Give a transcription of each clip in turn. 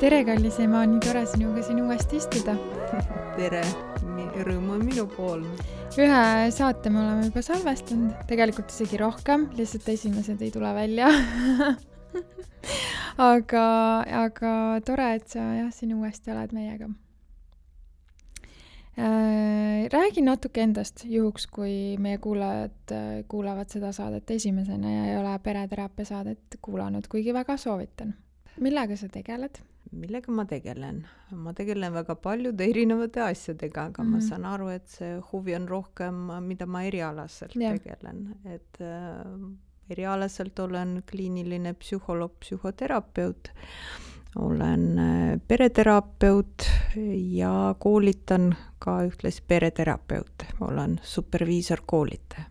Tere, kallis ema, nii tore sinuga siin uuesti istuda. Tere, rõõm on minu pool. Ühe saate me oleme juba salvestanud, tegelikult isegi rohkem, lihtsalt esimesed ei tule välja. aga tore, et sa siin uuesti oled meiega. Räägi natuke endast, juhuks kui meie kuulajad kuulavad seda saadet esimesena ja ei ole pereteraapia saadet kuulanud, kuigi väga soovitan. Millega sa tegeled? Millega ma tegelen? Ma tegelen väga paljude erinevate asjadega, aga ma saan aru, et see huvi on rohkem, mida ma erialaselt tegelen. Et erialaselt olen kliiniline psühholoog, psühhoterapeut, olen pereterapeut ja koolitan ka ühtlasi pereterapeut. Olen superviisor-koolitaja.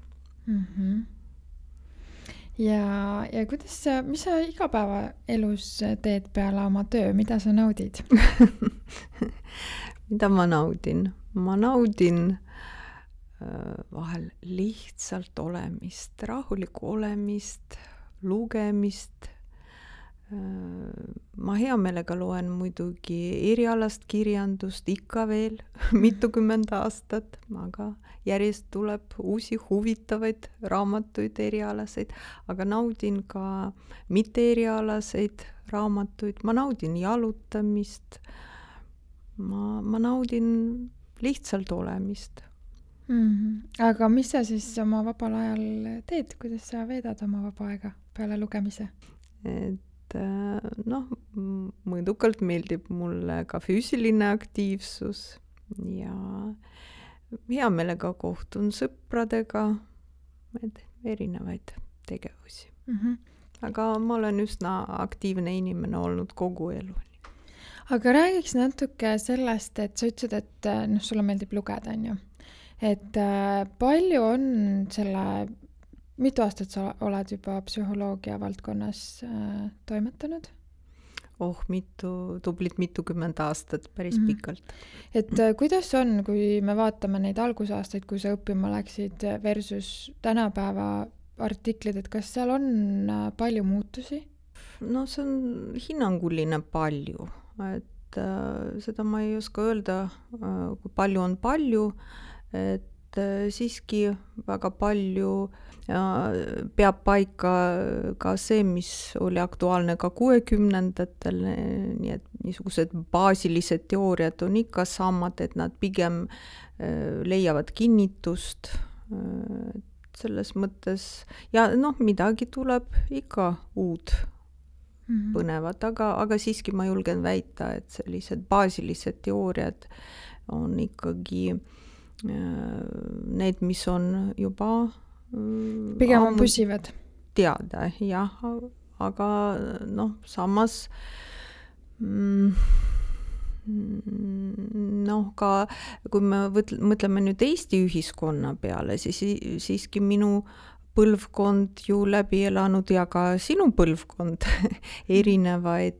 Ja kuidas mis sa igapäevaelus teed peale oma töö? Mida sa naudid? Mida ma naudin? Ma naudin vahel lihtsalt olemist, rahulikku olemist, lugemist. Ma hea meelega loen muidugi erialast kirjandust ikka veel mitukümmend aastat, aga järjest tuleb uusi huvitavaid raamatuid erialaseid, aga naudin ka mitte erialaseid raamatuid, ma naudin jalutamist, ma naudin lihtsalt olemist. Aga mis sa siis oma vabal ajal teed, kuidas sa veedad oma vaba aega peale lugemise? Mõõdukalt meeldib mulle ka füüsiline aktiivsus ja hea meelega kohtun sõpradega, erinevaid tegevusi. Aga ma olen üsna aktiivne inimene olnud kogu elu. Aga räägiks natuke sellest, et sa ütlesid, et sulle meeldib lugeda, on ju. Et palju on mitu aastat sa oled juba psühholoogia valdkonnas toimetanud? Tublit mitukümmend aastat, päris pikalt. Et kuidas on, kui me vaatame neid algusaastaid, kui sa õppima läksid versus tänapäeva artiklid, et kas seal on palju muutusi? No see on hinnanguline palju, et seda ma ei oska öelda, kui palju on palju, et siiski väga palju peab paika ka see, mis oli aktuaalne ka 60-ndatel, nii et niisugused baasilised teooriad on ikka samad, et nad pigem leiavad kinnitust selles mõttes ja midagi tuleb ikka uud põnevat, aga siiski ma julgen väita, et sellised baasilised teooriad on ikkagi need, mis on juba pigem on püsivad. Teada, jah, aga samas ka kui me mõtleme nüüd Eesti ühiskonna peale, siis siiski minu põlvkond ju läbi elanud ja ka sinu põlvkond erinevaid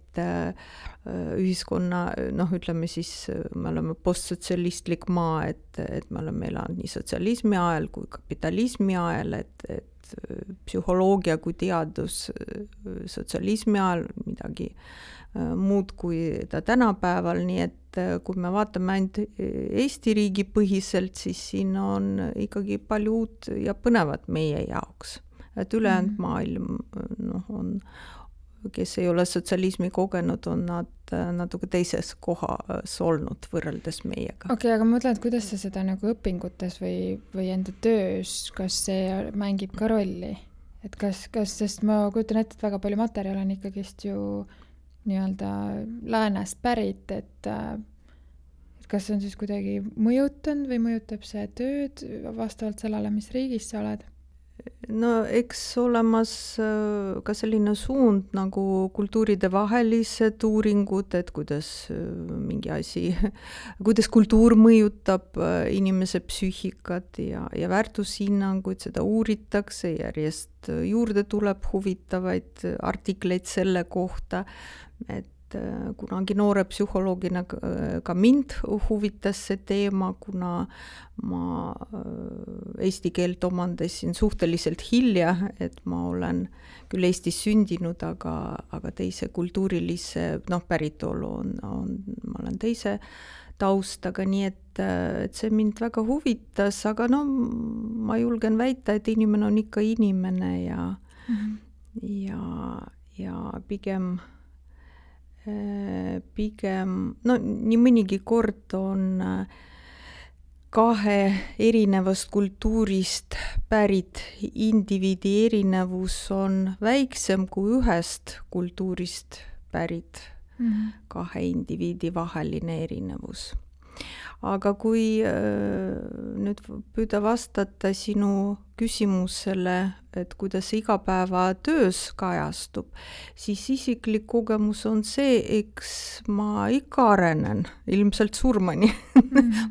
ühiskonna, ütleme siis, me oleme postsotsialistlik maa, et me oleme elanud nii sotsialismi ajal kui kapitalismi ajal, et psühholoogia kui teadus sotsialismi ajal midagi muud kui ta tänapäeval, nii et kui me vaatame ainult Eesti riigi põhiselt, siis siin on ikkagi palju uut ja põnevat meie jaoks. Et ülejäänud maailm on, kes ei ole sotsialismi kogenud, on nad natuke teises kohas olnud võrreldes meiega. Okei, aga ma mõtlen, et kuidas sa seda nagu õpingutes või enda töös, kas see mängib ka rolli? Et kas, sest ma kujutan ette, et väga palju materjal on ikkagist ju nii-öelda läänest pärit, et kas see on siis kuidagi mõjutanud või mõjutab see tööd vastavalt sellele, mis riigis sa oled? No eks olemas ka selline suund nagu kultuuride vahelised uuringud, et kuidas mingi asi, kuidas kultuur mõjutab inimese psüühikat ja väärtushinnanguid, seda uuritakse, järjest juurde tuleb huvitavaid artikleid selle kohta, et kunagi noore psühholoogina ka mind huvitas see teema, kuna ma eesti keelt omandasin suhteliselt hilja, et ma olen küll Eestis sündinud, aga teise kultuurilise päritolu ma olen teise taustaga, nii et see mind väga huvitas, aga ma julgen väita, et inimene on ikka inimene ja pigem nii mõnigi kord on kahe erinevast kultuurist pärit indiviidi erinevus on väiksem kui ühest kultuurist pärit kahe indiviidi vaheline erinevus. Aga kui nüüd püüda vastata sinu küsimusele, et kuidas see igapäevatöös kajastub, siis isiklik kogemus on see, eks ma ikka arenen, ilmselt surmani.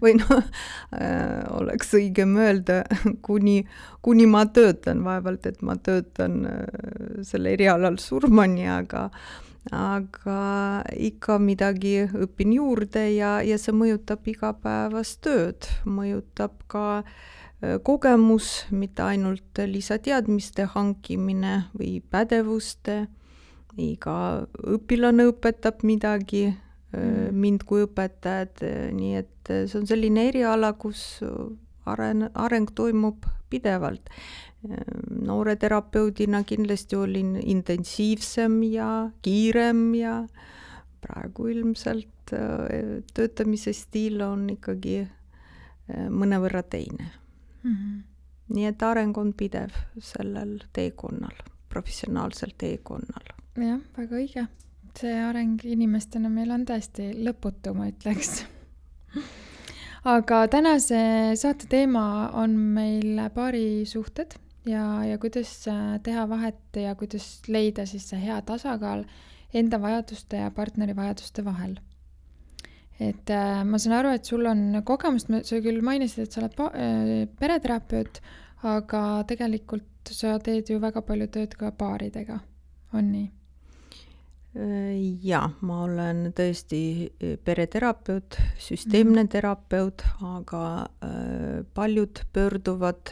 Või oleks õigem öelda, kuni ma töötan, vaevalt, et ma töötan selle erialal surmani, aga ikka midagi õpin juurde ja see mõjutab igapäevast tööd, mõjutab ka kogemus, mitte ainult lisateadmiste hankimine või pädevuste, iga õpilane õpetab midagi mind kui õpetajad, nii et see on selline eriala, kus areng toimub pidevalt. Noore terapeudina kindlasti olin intensiivsem ja kiirem ja praegu ilmselt töötamise stiil on ikkagi mõnevõrra teine. Nii et areng on pidev sellel teekonnal, professionaalsel teekonnal. Jah, väga õige. See areng inimestena meil on tõesti lõputu, ma ütleks. Aga tänase saate teema on meil paarisuhted ja kuidas teha vahet ja kuidas leida siis see hea tasakaal enda vajaduste ja partneri vajaduste vahel. Et ma saan aru, et sul on kogemust, sa küll mainisid, et sa oled pereterapeut, aga tegelikult sa teed ju väga palju tööd ka paaridega, on nii? Ja, ma olen tõesti pereterapeut, süsteemne terapeut, aga paljud pöörduvad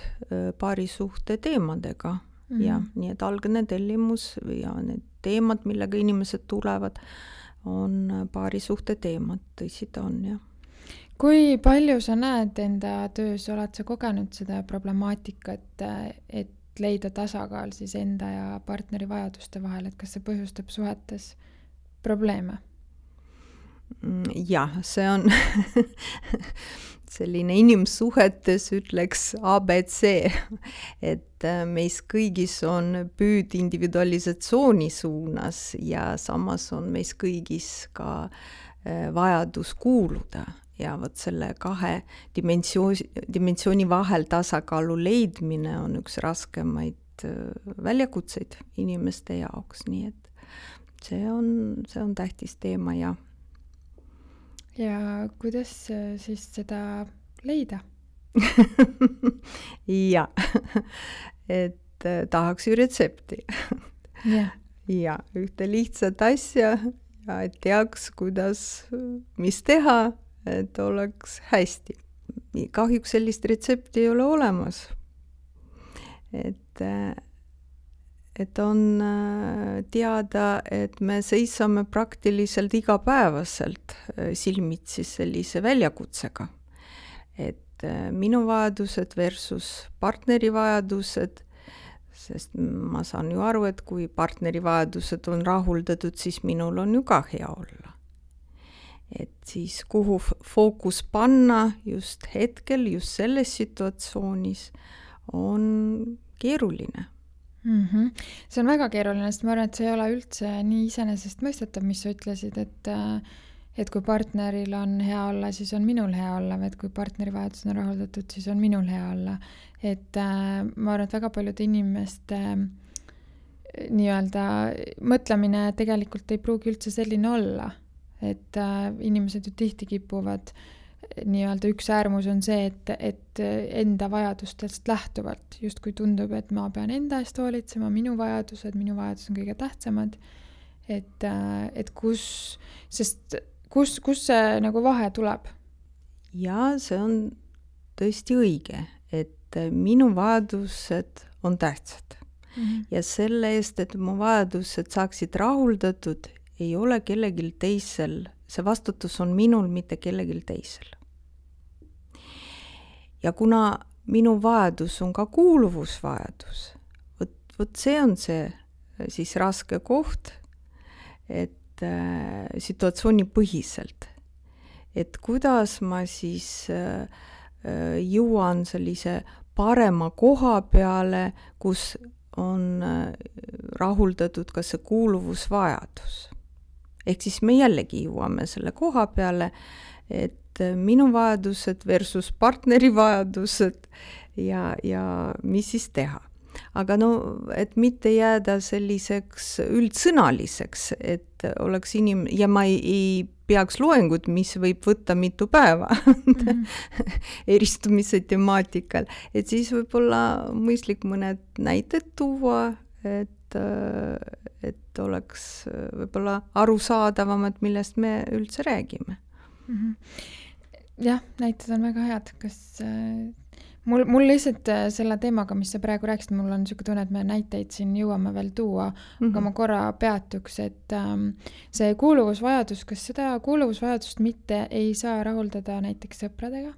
paarisuhte teemadega. Ja, nii et algne tellimus ja need teemad, millega inimesed tulevad, on paarisuhte teemad, tõsi ta on, jah. Kui palju sa näed enda töös, oled sa kogenud seda problemaatikat, et leida tasakaal siis enda ja partneri vajaduste vahel, et kas see põhjustab suhetes probleeme? Jah, see on selline inimsuhetes ütleks ABC, et meis kõigis on püüd individualisatsiooni suunas ja samas on meis kõigis ka vajadus kuuluda. Ja võt selle kahe dimensiooni vahel tasakaalu leidmine on üks raskemaid väljakutseid inimeste jaoks, nii et see on tähtis teema, jah. Ja kuidas siis seda leida? Ja, et tahaks ju retsepti. Ja, ühte lihtsat asja ja et teaks, mis teha, et oleks hästi. Kahjuks sellist retsepti ei ole olemas. Et on teada, et me seisame praktiliselt igapäevaselt silmitsi sellise väljakutsega. Et minu vajadused versus partneri vajadused, sest ma saan ju aru, et kui partneri vajadused on rahuldatud, siis minul on ju ka hea olla. Et siis kuhu fookus panna just hetkel, just selles situatsioonis on keeruline. See on väga keeruline, sest ma arvan, et see ei ole üldse nii iseenesest mõistetav, mis sa ütlesid, et kui partneril on hea olla, siis on minul hea olla, või et kui partneri vajadused on rahuldatud, siis on minul hea olla. Et ma arvan, et väga paljude inimeste nii-öelda mõtlemine tegelikult ei pruugi üldse selline olla. Et inimesed ju tihti kipuvad nii-öelda üks äärmus on see, et enda vajadustest lähtuvalt just kui tundub, et ma pean enda eest hoolitsema, minu vajadused on kõige tähtsamad, et kus see nagu vahe tuleb? Ja see on tõesti õige, et minu vajadused on tähtsad. Ja selle eest, et mu vajadused saaksid rahuldatud, ei ole kellelgi teisel, see vastutus on minul, mitte kellelgi teisel. Ja kuna minu vajadus on ka kuuluvusvajadus, vot see on see siis raske koht, et situatsioonipõhiselt, et kuidas ma siis jõuan sellise parema koha peale, kus on rahuldatud ka see kuuluvusvajadus. Ehk siis me jällegi jõuame selle koha peale, et minu vajadused versus partneri vajadused ja mis siis teha. Aga no, et mitte jääda selliseks üldsõnaliseks, et oleks ja ma ei peaks loengut, mis võib võtta mitu päeva eristumise temaatikal, et siis võib-olla mõistlik mõned näited tuua, et oleks võib-olla arusaadavam, et millest me üldse räägime. Jah, näited on väga head. Kas mul lihtsalt selle teemaga, mis sa praegu rääkisid, mul on niisugune tunne, et me näiteid siin jõuame veel tuua, aga ma korra peatuks, et see kuuluvusvajadus, kas seda kuuluvusvajadust mitte ei saa rahuldada näiteks sõpradega,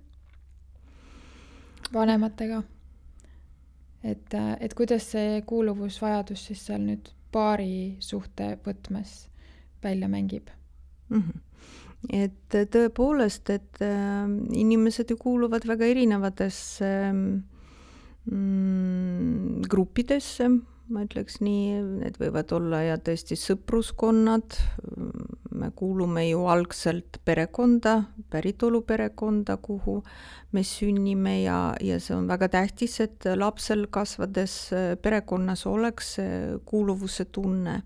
vanematega? Et kuidas see kuuluvusvajadus siis seal nüüd paari suhte võtmes välja mängib? Et tõepoolest, et inimesed ju kuuluvad väga erinevatesse gruppidesse, ma ütleks nii, need võivad olla ja tõesti sõpruskonnad, me kuulume ju algselt perekonda, päritoluperekonda, kuhu me sünnime ja see on väga tähtis, et lapsel kasvades perekonnas oleks kuuluvuse tunne,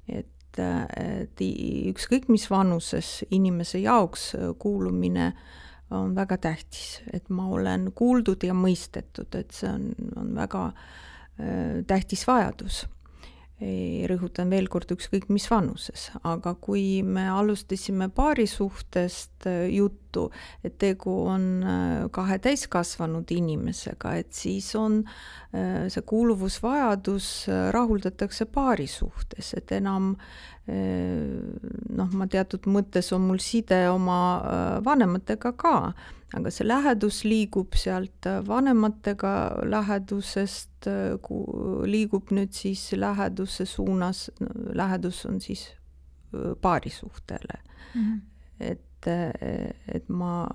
et ükskõik mis vanuses inimese jaoks kuulumine on väga tähtis, et ma olen kuuldud ja mõistetud, et see on väga tähtis vajadus. Rõhutan veel kord ükskõik mis vanuses, aga kui me alustasime paari suhtest juttu, et tegu on kahe täiskasvanud inimesega, et siis on see kuuluvusvajadus rahuldatakse paari suhtes, et enam ma teatud mõttes on mul side oma vanematega ka, aga see lähedus liigub sealt vanematega lähedusest, liigub nüüd siis läheduse suunas, lähedus on siis paarisuhtele. Et ma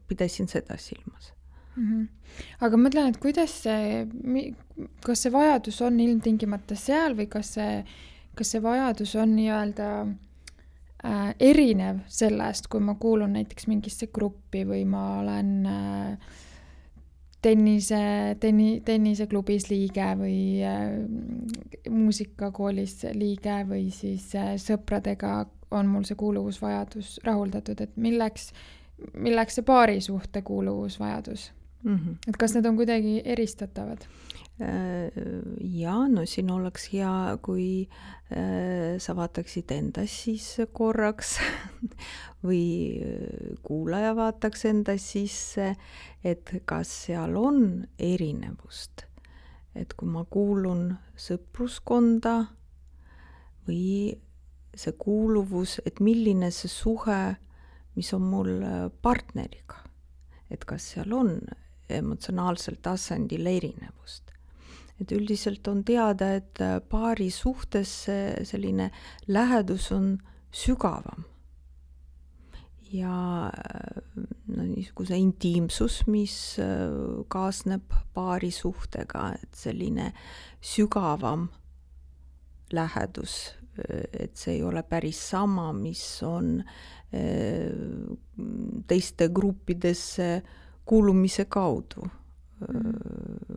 pidasin seda silmas. Aga mõtlen, et kuidas kas see vajadus on ilmtingimata seal või kas see vajadus on nii-öelda erinev sellest, kui ma kuulun näiteks mingisse gruppi või ma olen tenniseklubis liige või muusikakoolis liige või siis sõpradega on mul see kuuluvusvajadus rahuldatud, et milleks see paari suhte kuuluvusvajadus? Et kas need on kuidagi eristatavad? Ja, no siin oleks hea, kui sa vaataksid endas siis korraks või kuulaja vaataks endas sisse, et kas seal on erinevust. Et kui ma kuulun sõpruskonda või see kuuluvus, et milline see suhe, mis on mul partneriga, et kas seal on emotsionaalsel tasandil erinevust. Et üldiselt on teada, et paari suhtes selline lähedus on sügavam. Ja niisuguse intiimsus, mis kaasneb paari suhtega, et selline sügavam lähedus, et see ei ole päris sama, mis on teiste gruppidesse kuulumise kaudu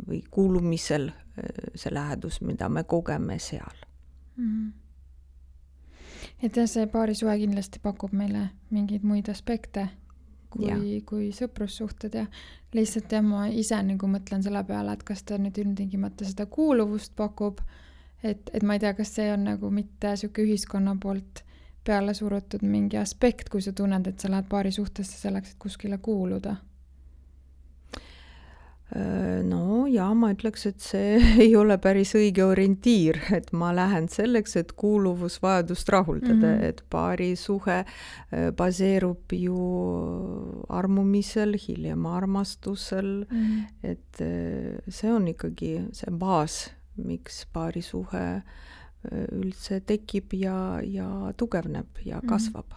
või kuulumisel see lähedus, mida me kogeme seal. Et see paarisuhe kindlasti pakub meile mingeid muid aspekte kui sõprussuhted ja lihtsalt ma ise nagu mõtlen selle peale, et kas ta nüüd ilmtingimata seda kuuluvust pakub, et ma ei tea, kas see on nagu mitte sihuke ühiskonna poolt peale surutud mingi aspekt, kui sa tunned, et sa lähed paari suhtesse selleks, et kuskile kuuluda? No ja ma ütleks, et see ei ole päris õige orientiir, et ma lähen selleks, et kuuluvusvajadust rahuldada, et paari suhe baseerub ju armumisel, hiljem armastusel, et see on ikkagi see baas, miks paari suhe üldse tekib ja tugevneb ja kasvab.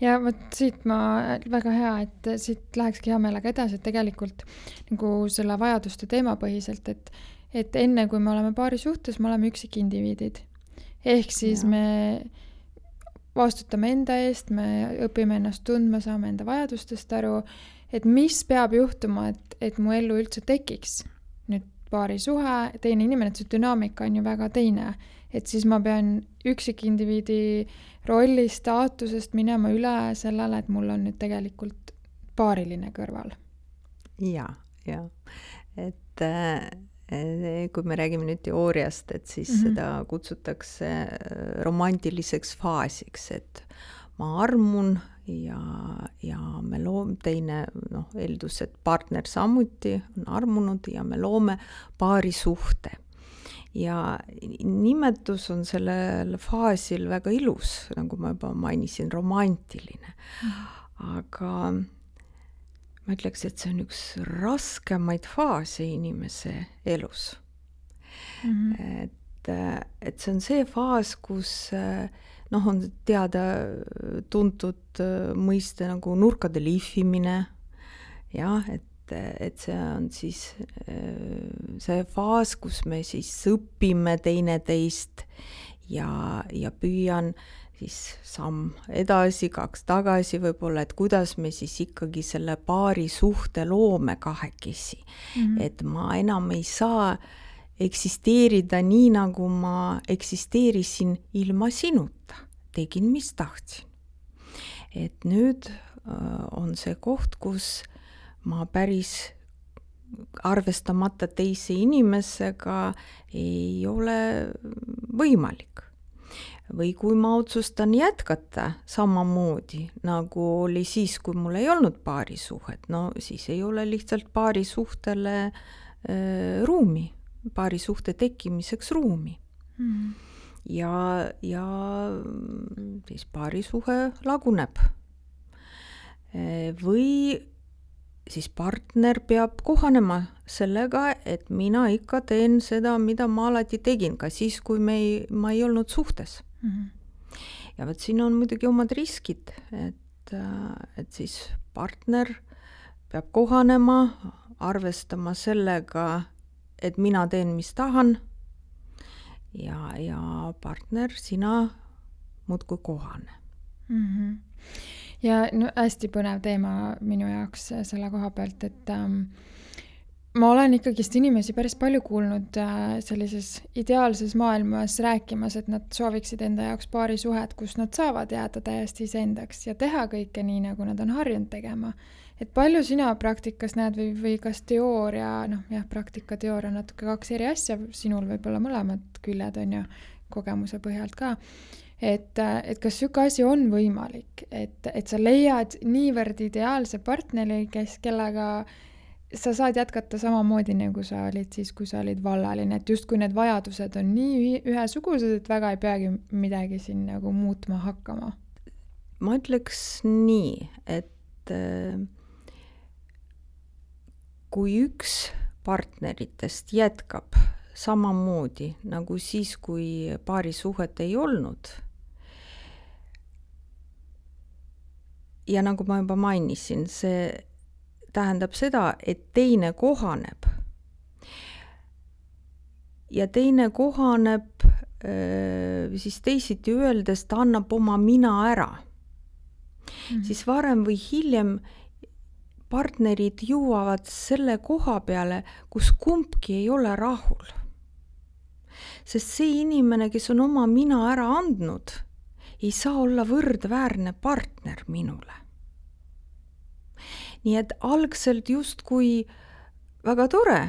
Ja vot siit väga hea, et siit lähekski hea meelega edasi, et tegelikult nagu selle vajaduste teemapõhiselt, et enne kui me oleme paari suhtes, me oleme üksikindiviidid. Ehk siis me vastutame enda eest, me õpime ennast tundma, saame enda vajadustest aru, et mis peab juhtuma, et mu ellu üldse tekiks nüüd paari suhe, teine inimene, et see dünaamika on ju väga teine. Et siis ma pean üksikindiviidi rolli staatusest minema üle sellele, et mul on nüüd tegelikult paariline kõrval. Ja. Et kui me räägime nüüd teooriast, et siis seda kutsutakse romantiliseks faasiks, et ma armun ja me loome teine, eeldus, et partner samuti on armunud ja me loome paari suhte. Ja nimetus on sellel faasil väga ilus, nagu ma juba mainisin, romantiline. Aga ma ütleks, et see on üks raskemaid faase inimese elus. Et see on see faas, kus on teada tuntud mõiste nagu nurkade lihvimine, et see on siis see faas, kus me siis õpime teineteist ja püüan siis samm edasi, 2 tagasi võib-olla, et kuidas me siis ikkagi selle paari suhte loome kahekesi. Et ma enam ei saa eksisteerida nii, nagu ma eksisteerisin ilma sinuta. Tegin, mis tahtsin. Et nüüd on see koht, kus ma päris arvestamata teise inimesega ei ole võimalik. Või kui ma otsustan jätkata samamoodi, nagu oli siis, kui mul ei olnud paari suhet, siis ei ole lihtsalt paari suhtele ruumi, paari suhte tekkimiseks ruumi. Ja siis paari suhe laguneb. Või siis partner peab kohanema sellega, et mina ikka teen seda, mida ma alati tegin, ka siis, kui ma ei olnud suhtes. Ja võt siin on muidugi omad riskid, et siis partner peab kohanema, arvestama sellega, et mina teen, mis tahan, ja partner, sina muudkui kohane. Ja hästi põnev teema minu jaoks selle koha pealt, et ma olen ikkagist inimesi päris palju kuulnud sellises ideaalses maailmas rääkimas, et nad sooviksid enda jaoks paari suhet, kus nad saavad jääda täiesti iseendaks ja teha kõike nii, nagu nad on harjunud tegema. Et palju sina praktikas näed või kas teooria, praktika, teooria on natuke 2 eri asja, sinul võib-olla mõlemad küljed on ju kogemuse põhjalt ka. Et kas siuke asi on võimalik, et sa leiad niivõrd ideaalse partneri, kellega sa saad jätkata samamoodi, nagu sa olid siis, kui sa olid vallaline, et just kui need vajadused on nii ühesugused, et väga ei peagi midagi siin nagu muutma hakkama? Ma ütleks nii, et kui üks partneritest jätkab samamoodi nagu siis, kui paari suhet ei olnud, ja nagu ma juba mainisin, see tähendab seda, et teine kohaneb. Ja teine kohaneb siis teisiti öeldes, ta annab oma mina ära. Siis varem või hiljem partnerid jõuavad selle koha peale, kus kumbki ei ole rahul. Sest see inimene, kes on oma mina ära andnud, ei saa olla võrdväärne partner minule. Nii et algselt justkui väga tore,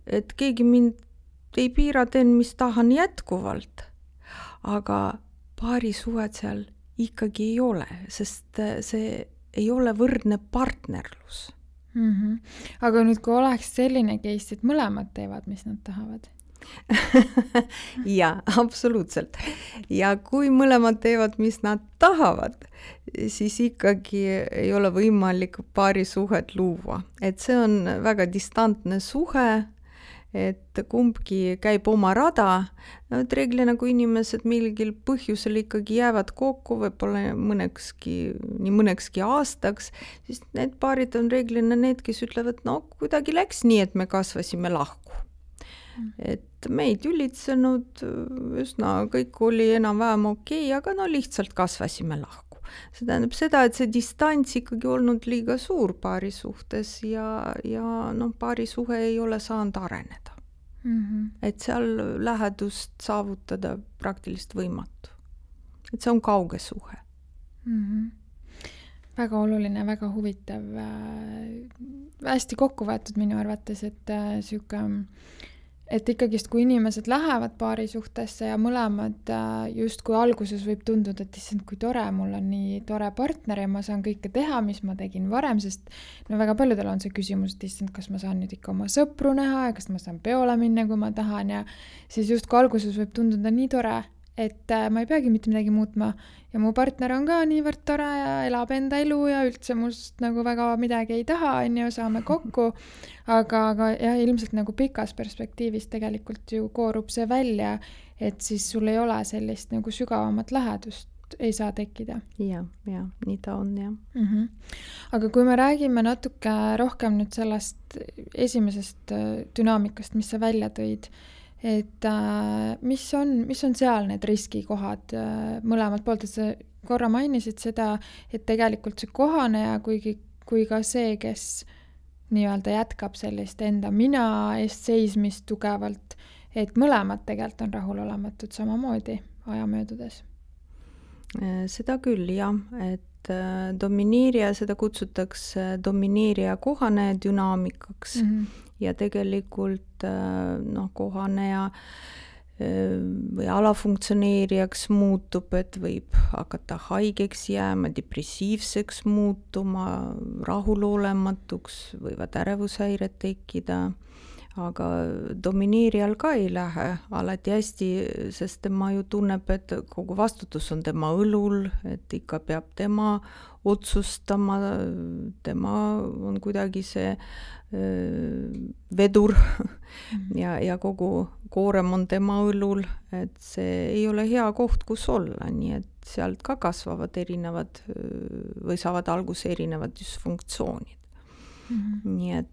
et keegi mind ei piira, teen, mis tahan jätkuvalt. Aga paarisuhet seal ikkagi ei ole, sest see ei ole võrdne partnerlus. Aga nüüd, kui oleks selline case, et mõlemad teevad, mis nad tahavad? Jaa, absoluutselt. Ja kui mõlemad teevad, mis nad tahavad, siis ikkagi ei ole võimalik paarisuhet luua. Et see on väga distantne suhe, et kumbki käib oma rada. Et reeglina, kui inimesed mingil põhjusel ikkagi jäävad kokku, võib-olla mõnekski aastaks, siis need paarid on reeglina need, kes ütlevad, no kuidagi läks nii, et me kasvasime lahku. Et me ei tülitsenud, üsna kõik oli enam-vähem okei, aga no lihtsalt kasvasime lahku. See tähendab seda, et see distants ikkagi olnud liiga suur paari suhtes ja paari suhe ei ole saanud areneda. Et seal lähedust saavutada praktiliselt võimatu. Et see on kauge suhe. Väga oluline, väga huvitav. Hästi kokku võetud minu arvates, et ikkagist, kui inimesed lähevad paari suhtesse ja mõlemad just kui alguses võib tunduda, et issand, kui tore, mul on nii tore partner ja ma saan kõike teha, mis ma tegin varem, sest väga paljudel on see küsimus, et issand, kas ma saan nüüd ikka oma sõpru näha ja kas ma saan peole minna, kui ma tahan ja siis just kui alguses võib tunduda nii tore, et ma ei peagi mitte midagi muutma ja mu partner on ka niivõrd tore ja elab enda elu ja üldse must väga midagi ei taha, saame kokku, aga jah, ilmselt pikas perspektiivis tegelikult ju koorub see välja, et siis sul ei ole sellist sügavamat lähedust ei saa tekkida. Ja, nii ta on, jah. Aga kui me räägime natuke rohkem nüüd sellest esimesest dünaamikast, mis sa välja tõid, et mis on seal need riskikohad mõlemalt poolt, et sa korra mainisid seda, et tegelikult see kohaneja kui ka see, kes nii-öelda jätkab sellist enda mina eest seismist tugevalt, et mõlemad tegelikult on rahulolematud samamoodi aja möödudes. Seda küll, jah, et domineerija, seda kutsutakse domineerija kohaneja dünaamikaks ja tegelikult kohaneja või alafunktsioneerijaks muutub, et võib hakata haigeks jääma, depressiivseks muutuma, rahulolematuks, võivad ärevushäired tekkida, aga domineerijal ka ei lähe alati hästi, sest tema ju tunneb, et kogu vastutus on tema õlul, et ikka peab tema otsustama, tema on kuidagi see vedur ja kogu koorem on tema õlul, et see ei ole hea koht, kus olla, nii et sealt ka kasvavad erinevad või saavad alguse erinevad dysfunktsioonid. Nii et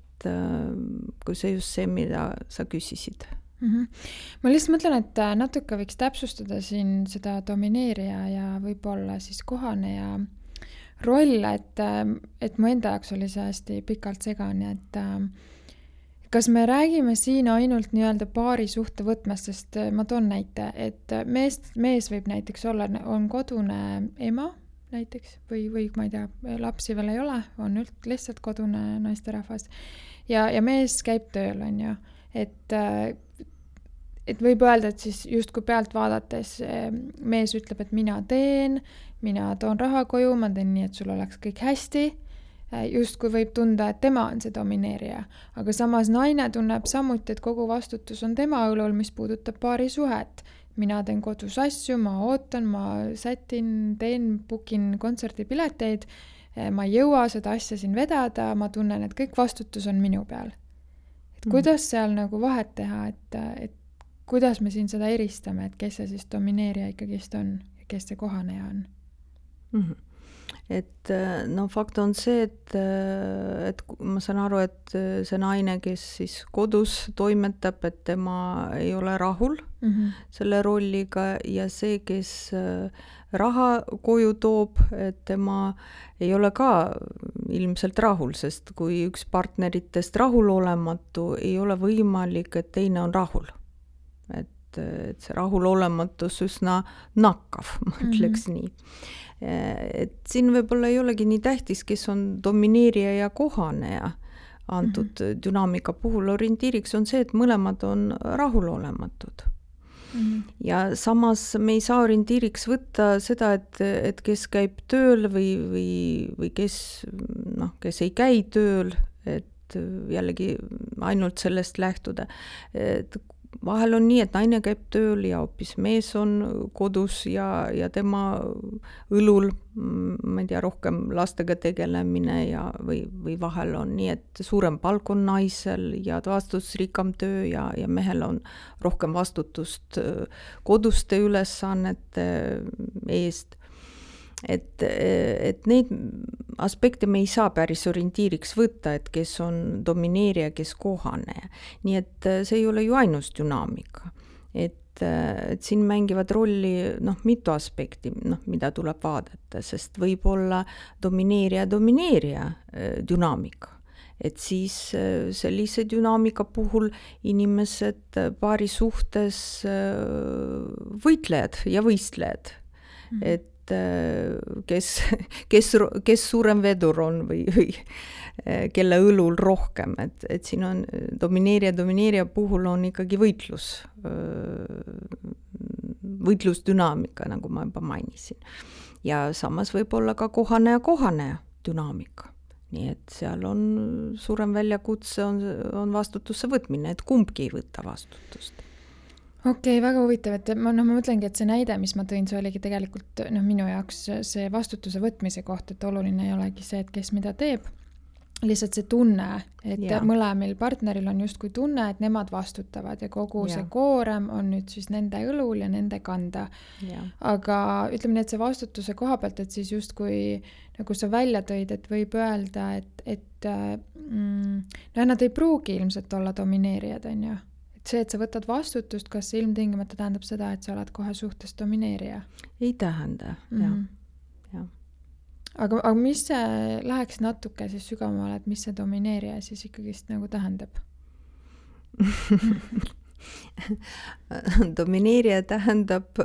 kui see just see, mida sa küsisid. Ma lihtsalt mõtlen, et natuke võiks täpsustada siin seda domineerija ja võib-olla siis kohaneja roll, et mu enda jaoks oli see hästi pikalt segane, et kas me räägime siin ainult nii-öelda paari suhte võtmest, sest ma toon näite, et mees võib näiteks olla, on kodune ema näiteks või ma ei tea, lapsi veel ei ole, on lihtsalt kodune naisterahvas ja mees käib tööl, on ju, et võib öelda, et siis justkui pealt vaadates mees ütleb, et mina toon raha koju, ma teen nii, et sul oleks kõik hästi, justkui võib tunda, et tema on see domineerija, aga samas naine tunneb samuti, et kogu vastutus on tema õlul, mis puudutab paari suhet. Mina teen kodus asju, ma ootan, ma sätin, bookin kontserdipileteid, ma ei jõua seda asja siin vedada, ma tunnen, et kõik vastutus on minu peal. Et kuidas seal vahet teha, et kuidas me siin seda eristame, et kes see siis domineerija ikkagist on ja kes see kohaneja on? Et fakt on see, et ma saan aru, et see naine, kes siis kodus toimetab, et tema ei ole rahul selle rolliga ja see, kes raha koju toob, et tema ei ole ka ilmselt rahul, sest kui üks partneritest rahulolematu, ei ole võimalik, et teine on rahul. Et see rahulolematus üsna nakkav, ma ütleks nii. Et siin võib-olla ei olegi nii tähtis, kes on domineerija ja kohaneja, antud dünaamika puhul orientiiriks on see, et mõlemad on rahulolematud. Ja samas me ei saa orientiiriks võtta seda, et kes käib tööl või kes ei käi tööl, et jällegi ainult sellest lähtuda. Et vahel on nii, et naine käib tööl ja hoopis mees on kodus ja tema õlul, ma ei tea, rohkem lastega tegelemine või vahel on nii, et suurem palk on naisel ja vastutusrikkam töö ja mehel on rohkem vastutust koduste ülesannete eest. Et neid aspekte me ei saa päris orientiiriks võtta, et kes on domineerija, kes kohane. Nii et see ei ole ju ainus dünaamika. Et siin mängivad rolli mitu aspekti, mida tuleb vaadata, sest võib olla domineerija dünaamika. Et siis sellise dünaamika puhul inimesed paari suhtes võitlejad ja võistlejad. Et kes suurem vedur on või kelle õlul rohkem, et siin on domineerija puhul on ikkagi võitlusdünaamika, nagu ma juba mainisin. Ja samas võib olla ka kohane dünaamika. Nii et seal on suurem väljakutse on vastutuse võtmine, et kumbki ei võta vastutust. Okei, väga huvitav, et ma mõtlengi, et see näide, mis ma tõin, see oligi tegelikult minu jaoks see vastutuse võtmise koht, et oluline ei olegi see, et kes mida teeb, lihtsalt see tunne, et mõlemil partneril on justkui tunne, et nemad vastutavad ja kogu see koorem on nüüd siis nende õlul ja nende kanda. Aga ütleme nii, et see vastutuse koha pealt, et siis justkui nagu sa välja tõid, et võib öelda, et nad ei pruugi ilmselt olla domineerijad, on ju. See, et sa võtad vastutust, kas see ilmtingimata tähendab seda, et sa oled kohe suhtes domineerija? Ei tähenda, jah. Aga mis see läheks natuke siis sügavamale, et mis see domineerija siis ikkagist nagu tähendab? Domineerija tähendab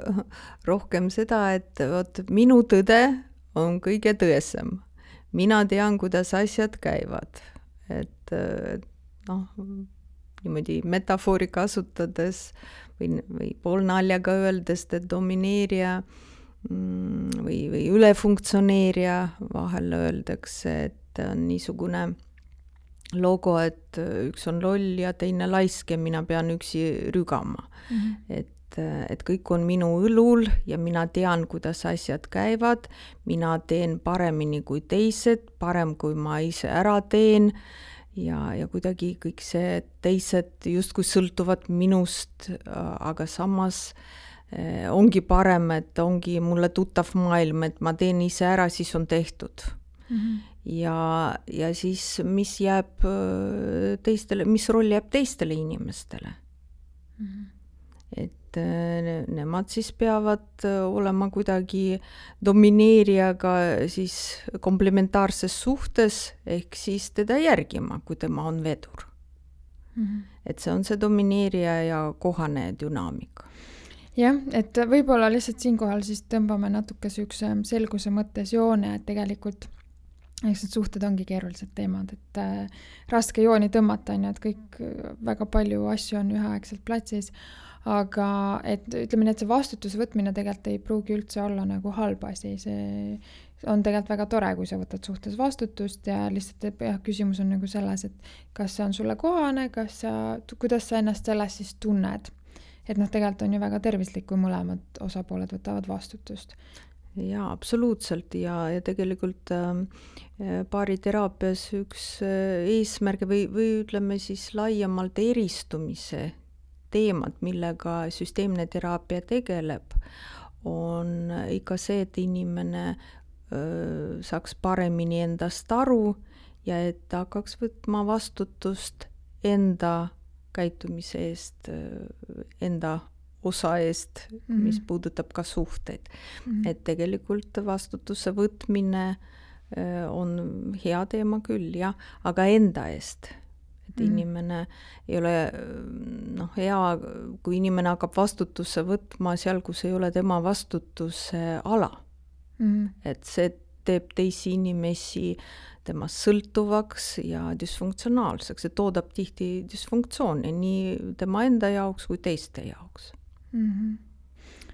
rohkem seda, et minu tõde on kõige tõesem. Mina tean, kuidas asjad käivad. Et niimoodi metafoori kasutades või poolnaljaga öeldes, et domineerija või ülefunktsioneerija, vahel öeldakse, et on niisugune logo, et üks on loll ja teine laisk ja mina pean üksi rügama. Et kõik on minu õlul ja mina tean, kuidas asjad käivad, mina teen paremini kui teised, parem kui ma ise ära teen, ja kuidagi kõik see teised justkui sõltuvad minust, aga samas ongi parem, et ongi mulle tuttav maailm, et ma teen ise ära, siis on tehtud. Ja siis mis roll jääb teistele inimestele. Et nemad siis peavad olema kuidagi domineerijaga siis komplementaarses suhtes, ehk siis teda järgima, kui tema on vedur. Et see on see domineerija ja kohane dünaamika. Jah, et võib-olla lihtsalt siinkohal siis tõmbame natuke süüks selguse mõttes joone, et tegelikult eks need suhted ongi keerulised teemad, et raske jooni tõmmata, et kõik väga palju asju on üheaegselt platsis. Aga et ütleme nii, et see vastutuse võtmine tegelikult ei pruugi üldse olla nagu halb asi. See on tegelikult väga tore, kui sa võtad suhtes vastutust ja lihtsalt küsimus on nagu selles, et kas see on sulle kohane, kuidas sa ennast selles siis tunned. Et tegelikult on ju väga tervislik, kui mõlemad osapooled võtavad vastutust. Jaa, absoluutselt ja tegelikult paariteraapias üks eesmärk või ütleme siis laiemalt eristumise teemad, millega süsteemne teraapia tegeleb, on ikka see, et inimene saaks paremini endast aru ja et ta hakkaks võtma vastutust enda käitumise eest, enda osa eest, mis puudutab ka suhteid. Et tegelikult vastutuse võtmine on hea teema küll, jah, aga enda eest. Et inimene ei ole hea, kui inimene hakkab vastutuse võtma seal, kus ei ole tema vastutuse ala. Et see teeb teisi inimesi temast sõltuvaks ja dysfunktsionaalseks, et toodab tihti dysfunktsiooni nii tema enda jaoks kui teiste jaoks.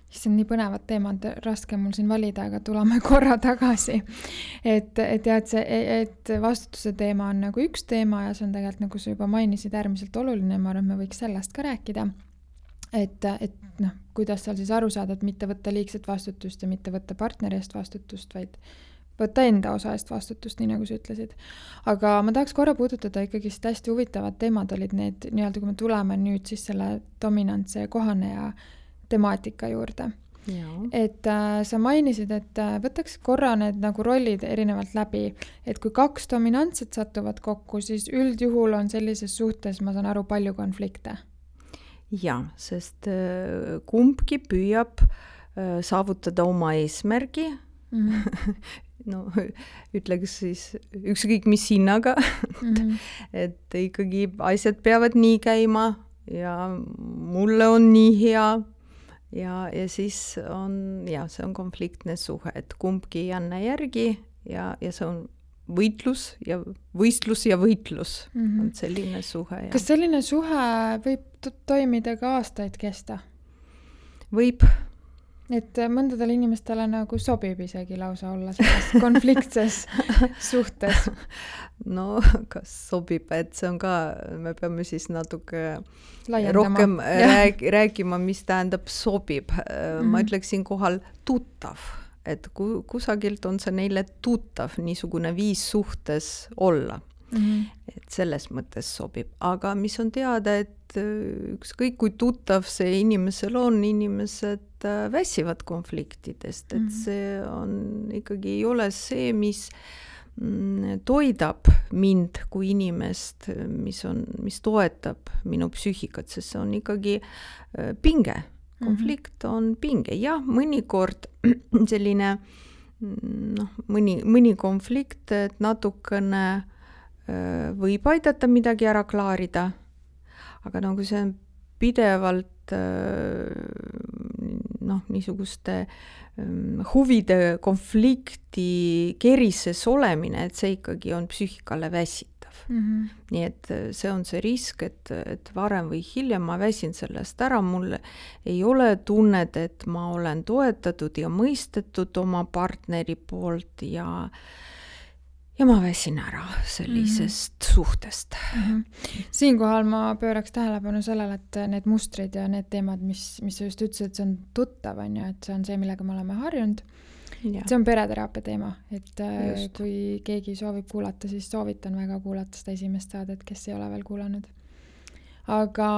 See on nii põnevad teemad, raske mul siin valida, aga tuleme korra tagasi. Et vastutuse teema on nagu üks teema ja see on tegelikult, nagu sa juba mainisid, äärmiselt oluline, ma arvan, et me võiks sellest ka rääkida. Et kuidas seal siis aru saada, et mitte võtta liigset vastutust ja mitte võtta partneri eest vastutust, vaid võtta enda osa eest vastutust, nii nagu sa ütlesid. Aga ma tahaks korra puudutada ikkagi hästi huvitavad teemad olid need, nii-öelda kui me tuleme nüüd siis selle dominantse kohaneja temaatika juurde. Ja. Et sa mainisid, et võtaks korra need nagu rollid erinevalt läbi, et kui 2 dominantset satuvad kokku, siis üldjuhul on sellises suhtes, ma saan aru, palju konflikte. Ja, sest kumbki püüab saavutada oma eesmärgi, no ütleks siis ükskõik mis hinnaga, et ikkagi asjad peavad nii käima ja mulle on nii hea ja siis on, see on konfliktne suhe, et kumbki ei anna järgi ja see on võistlus ja võitlus on selline suhe. Ja. Kas selline suhe võib toimida ka aastaid kesta? Võib. Et mõndadele inimestele nagu sobib isegi lausa olla selles konfliktses suhtes. No, kas sobib, et see on ka, me peame siis natuke laiendama. Rohkem rääkima, mis tähendab sobib. Ma ütleksin kohal tuttav, et kusagilt on see neile tuttav niisugune viis suhtes olla. Et selles mõttes sobib. Aga mis on teada, et ükskõik kui tuttav see inimesel on, inimesed väsivad konfliktidest, et see on ikkagi ei ole see, mis toidab mind kui inimest, mis toetab minu psüühikat, sest see on ikkagi pinge. Konflikt on pinge. Jah, mõnikord selline mõni konflikt, et natukene võib aidata midagi ära klaarida, aga nagu see on pidevalt niisuguste huvide konflikti kerises olemine, et see ikkagi on psüühikale väsitav. Nii et see on see risk, et varem või hiljem ma väsin sellest ära, mul ei ole tunnet, et ma olen toetatud ja mõistetud oma partneri poolt ja ma väsin ära sellisest suhtest. Siinkohal ma pööraks tähelepanu sellele, et need mustrid ja need teemad, mis sa just ütlesid, et see on tuttav, on ju, et see on see, millega me oleme harjunud. Ja. See on pereteraapia teema, et just. Kui keegi soovib kuulata, siis soovitan väga kuulata seda esimest saadet, kes ei ole veel kuulanud. Aga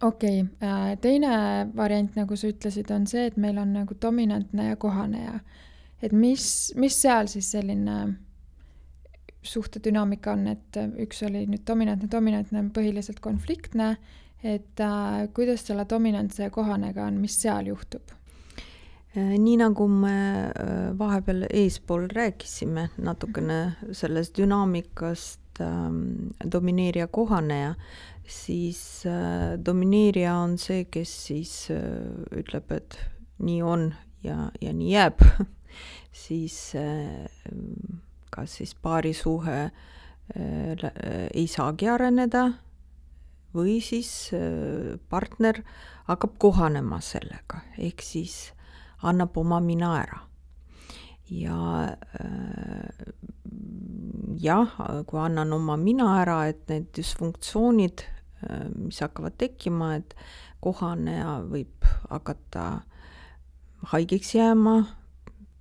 okei, teine variant, nagu sa ütlesid, on see, et meil on nagu dominantne ja kohaneja. Et mis seal siis selline suhtedünaamika on, et üks oli nüüd dominantne põhiliselt konfliktne, et kuidas selle dominantse ja kohanega on, mis seal juhtub? Nii nagu me vahepeal eespool rääkisime natukene sellest dünaamikast domineerija kohaneja, siis domineerija on see, kes siis ütleb, et nii on ja nii jääb. Siis kas siis paarisuhe ei saagi areneda või siis partner hakkab kohanema sellega, ehk siis annab oma mina ära. Ja kui annan oma mina ära, et need dysfunktsioonid, mis hakkavad tekkima, et kohaneja võib hakata haigeks jääma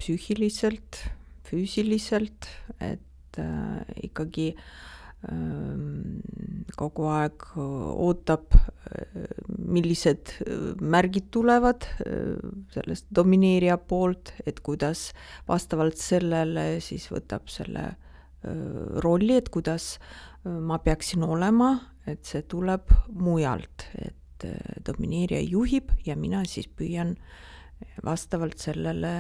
psüühiliselt, füüsiliselt, et ikkagi kogu aeg ootab, millised märgid tulevad sellest domineerija poolt, et kuidas vastavalt sellele siis võtab selle rolli, et kuidas ma peaksin olema, et see tuleb mujalt, et domineerija juhib ja mina siis püüan vastavalt sellele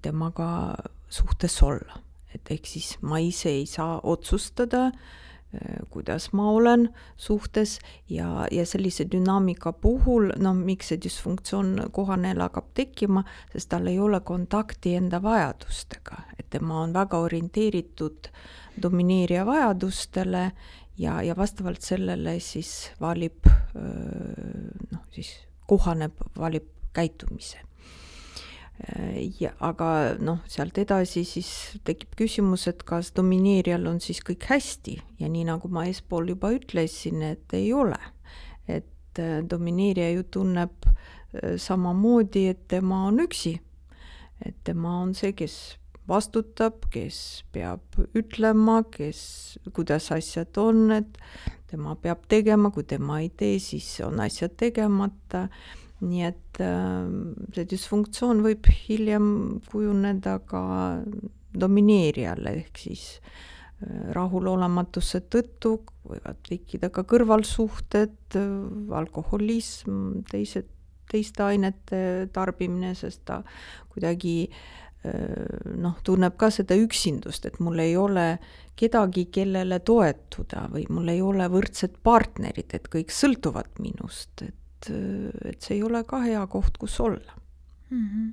temaga suhtes olla. Et ehk siis ma ise ei saa otsustada, kuidas ma olen suhtes ja sellise dünaamika puhul, miks see dysfunktsioon kohanejal hakkab tekkima, sest tal ei ole kontakti enda vajadustega, et tema on väga orienteeritud domineerija vajadustele ja vastavalt sellele siis valib, siis kohaneb, valib käitumise. Aga sealt edasi siis tekib küsimus, et kas domineerijal on siis kõik hästi ja nii nagu ma eespool juba ütlesin, et ei ole. Et domineerija ju tunneb samamoodi, et tema on üksi. Et tema on see, kes vastutab, kes peab ütlema, kuidas asjad on, et tema peab tegema, kui tema ei tee, siis on asjad tegemata. Nii et see dysfunktsioon võib hiljem kujuneda ka domineerijale, ehk siis rahulolematuse tõttu võivad tekkida ka kõrvalsuhted, alkoholism, teiste ainete tarbimine, sest ta kuidagi tunneb ka seda üksindust, et mul ei ole kedagi, kellele toetuda või mul ei ole võrdsed partnerid, et kõik sõltuvad minust, et see ei ole ka hea koht, kus olla. Mm-hmm.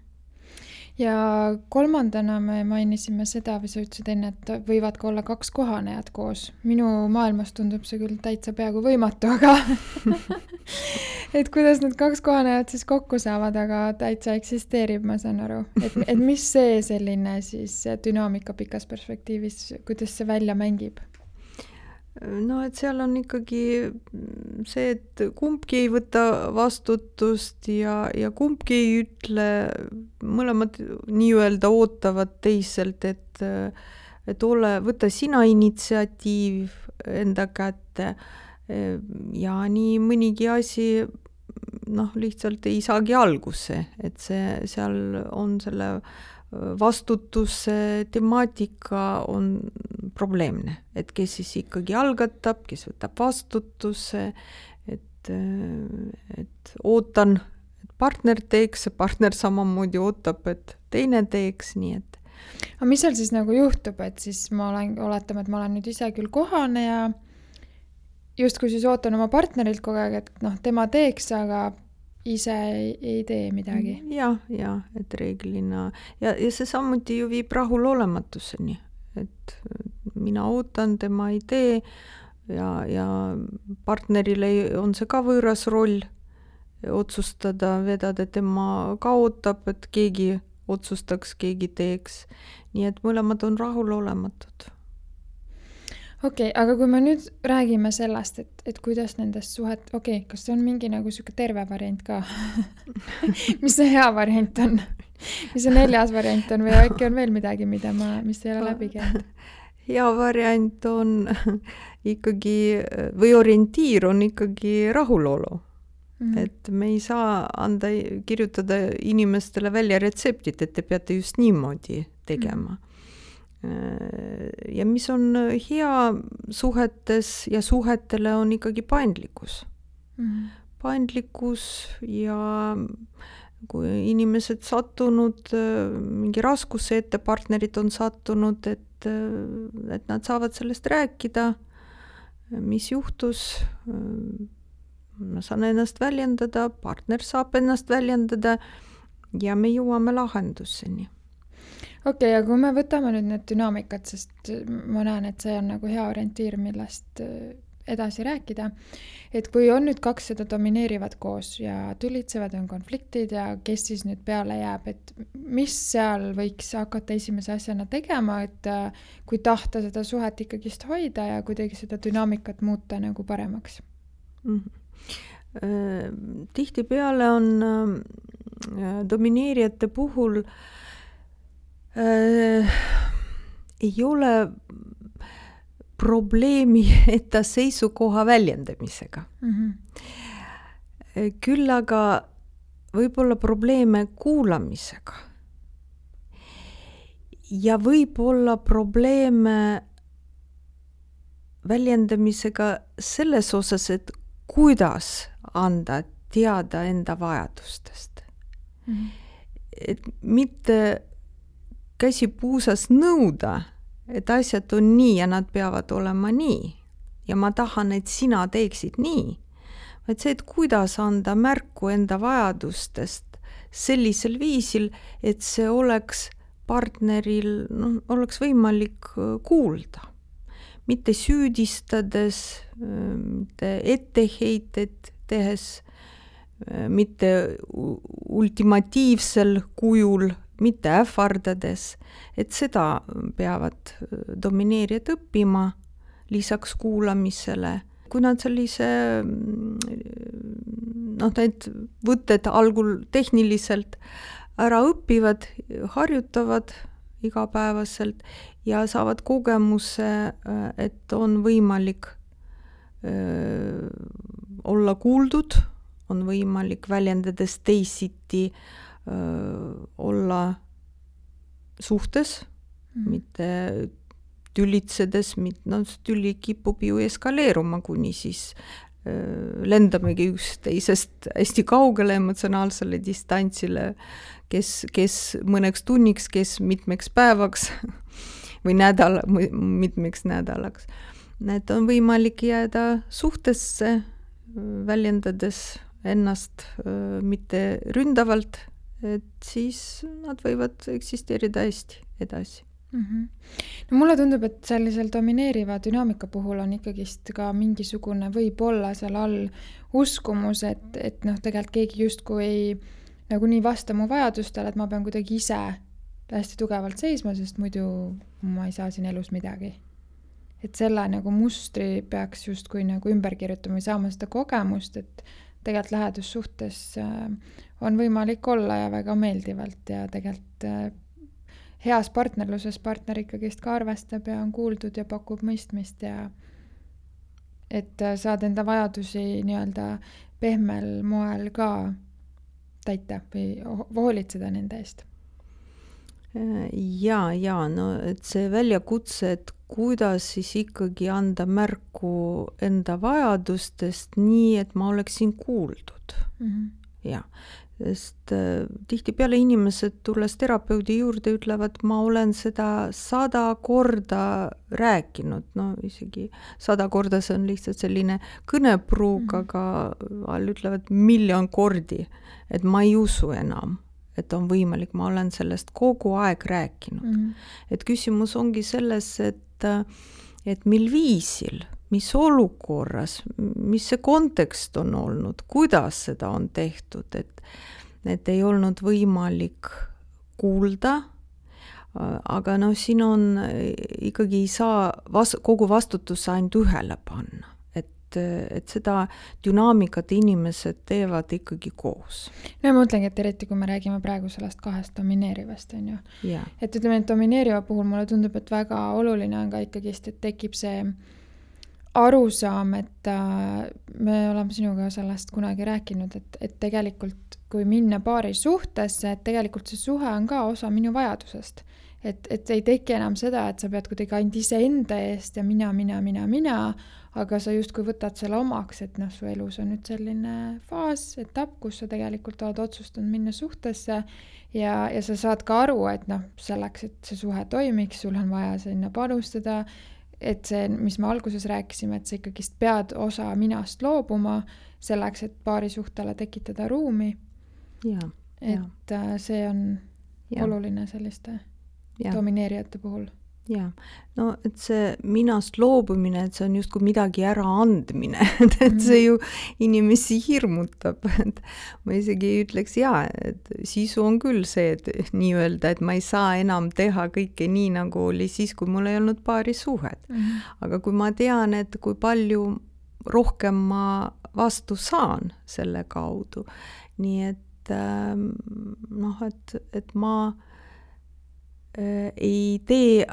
Ja kolmandana me mainisime seda, või sa ütlesid enne, et võivad ka olla 2 kohanejat koos. Minu maailmas tundub see küll täitsa peaaegu võimatu, aga et kuidas need 2 kohanejat siis kokku saavad, aga täitsa eksisteerib, ma saan aru. Et mis see selline siis dünaamika pikas perspektiivis, kuidas see välja mängib? Et seal on ikkagi see, et kumbki ei võta vastutust ja kumbki ei ütle, mõlemad nii-öelda ootavad teiselt, et võta sina initsiatiiv enda kätte ja nii mõnigi asi lihtsalt ei saagi alguse, et seal on selle vastutuse temaatika on probleemne, et kes siis ikkagi algatab, kes võtab vastutuse, et ootan, et partner teeks, partner samamoodi ootab, et teine teeks, nii et. Aga mis seal siis nagu juhtub, et siis oletame, et ma olen nüüd ise küll kohane ja justkui siis ootan oma partnerilt kogu aeg, et tema teeks, aga ise ei tee midagi. Ja, et reeglina. Ja see samuti ju viib rahulolematuseni, et mina ootan, tema ei tee ja partnerile on see ka võõras roll otsustada, vedada, tema ka ootab, et keegi otsustaks, keegi teeks. Nii et mõlemad on rahulolematud. Okei, aga kui me nüüd räägime sellest, et kuidas nendest suhet, kas see on mingi nagu siuke terve variant ka? Mis see hea variant on? Mis see 4. variant on või äkki on veel midagi, mis ei ole läbi käinud? Hea variant on ikkagi, või orientiir on ikkagi rahulolu. Mm-hmm. Et me ei saa kirjutada inimestele välja retseptit, et te peate just niimoodi tegema. Mm-hmm. Ja mis on hea suhetes ja suhetele on ikkagi paindlikkus. Mm-hmm. Paindlikkus ja kui inimesed sattunud mingi raskuse ette, partnerid on sattunud, et nad saavad sellest rääkida, mis juhtus, ma saan ennast väljendada, partner saab ennast väljendada ja me jõuame lahenduseni. Okei, aga kui me võtame nüüd need dünaamikad, sest ma näen, et see on nagu hea orientiir, millest edasi rääkida, et kui on nüüd 2 seda domineerivad koos ja tülitsevad, on konfliktid ja kes siis nüüd peale jääb, et mis seal võiks hakata esimese asjana tegema, et kui tahta seda suhet ikkagist hoida ja kuidagi seda dünaamikat muuta nagu paremaks? Mm-hmm. Tihtipeale on domineerijate puhul ei ole probleemi enda seisukoha väljendamisega. Mm-hmm. Küll aga võib-olla probleeme kuulamisega. Ja võib-olla probleeme väljendamisega selles osas, et kuidas anda teada enda vajadustest. Mm-hmm. Et mitte käsi puusas nõuda, et asjad on nii ja nad peavad olema nii, ja ma tahan, et sina teeksid nii, vaid see, et kuidas anda märku enda vajadustest sellisel viisil, et see oleks partneril, oleks võimalik kuulda. Mitte süüdistades, mitte etteheited tehes, mitte ultimatiivsel kujul, mitte ähvardades, et seda peavad domineerijad õppima lisaks kuulamisele. Kui nad sellise, need võtted algul tehniliselt ära õpivad, harjutavad igapäevaselt ja saavad kogemuse, et on võimalik olla kuuldud, on võimalik väljendades teisiti olla suhtes, mitte tülitsedes, tüli kipub ju eskaleeruma, kuni siis lendamegi üksteisest hästi kaugele emotsionaalsele distantsile, kes mõneks tunniks, kes mitmeks päevaks või mitmeks nädalaks. Need on võimalik jääda suhtesse, väljendades ennast mitte ründavalt, et siis nad võivad eksisteerida hästi edasi. No mulle tundub, et sellisel domineeriva dünaamika puhul on ikkagist ka mingisugune võib-olla seal all uskumus, et tegelikult keegi justkui ei nagu nii vasta mu vajadustele, et ma pean kuidagi ise hästi tugevalt seisma, sest muidu ma ei saa siin elus midagi. Et selle nagu mustri peaks justkui nagu ümber kirjutama või saama seda kogemust, et tegelikult lähedussuhtes on võimalik olla ja väga meeldivalt ja tegelikult heas partnerluses partner ikkagist ka arvestab ja on kuuldud ja pakub mõistmist ja et saad enda vajadusi nii-öelda pehmel moel ka täita või hoolitseda nende eest. Ja, et see väljakutse, et kuidas siis ikkagi anda märku enda vajadustest nii, et ma oleksin kuuldud. Ja, sest tihtipeale inimesed tulles terapeudi juurde ütlevad, ma olen seda 100 korda rääkinud, isegi 100 korda see on lihtsalt selline kõnepruug, aga ütlevad 1 000 000 kordi, et ma ei usu enam, et on võimalik, ma olen sellest kogu aeg rääkinud. Et küsimus ongi selles, et mil viisil, mis olukorras, mis see kontekst on olnud, kuidas seda on tehtud, et ei olnud võimalik kuulda, aga siin on ikkagi ei saa kogu vastutuse ainult ühele panna. Et seda dünaamikat inimesed teevad ikkagi koos. No ma mõtlengi, et eriti kui me räägime praegu sellest 2 domineerivast, on ju. Yeah. Et ütleme, et domineeriva puhul mulle tundub, et väga oluline on ka ikkagist, et tekib see arusaam, et me oleme sinuga sellest kunagi rääkinud, et tegelikult kui minna paari suhtesse, et tegelikult see suhe on ka osa minu vajadusest. Et ei teki enam seda, et sa pead kuidagi ainult ise enda eest ja mina, aga sa justkui võtad selle omaks, et su elus on nüüd selline faas, etapp, kus sa tegelikult oled otsustanud minna suhtesse ja sa saad ka aru, et selleks, et see suhe toimiks, sul on vaja sinna panustada, et see, mis me alguses rääkisime, et sa ikkagist pead osa minast loobuma selleks, et paari suhtele tekitada ruumi. Et see on oluline selliste domineerijate puhul. Ja, et see minast loobumine, et see on justkui midagi ära andmine, et see ju inimesi hirmutab, et ma isegi ütleks et sisu on küll see, et nii öelda, et ma ei saa enam teha kõike nii, nagu oli siis, kui mul ei olnud paari suhet. Aga kui ma tean, et kui palju rohkem ma vastu saan selle kaudu, nii et et ma ei tee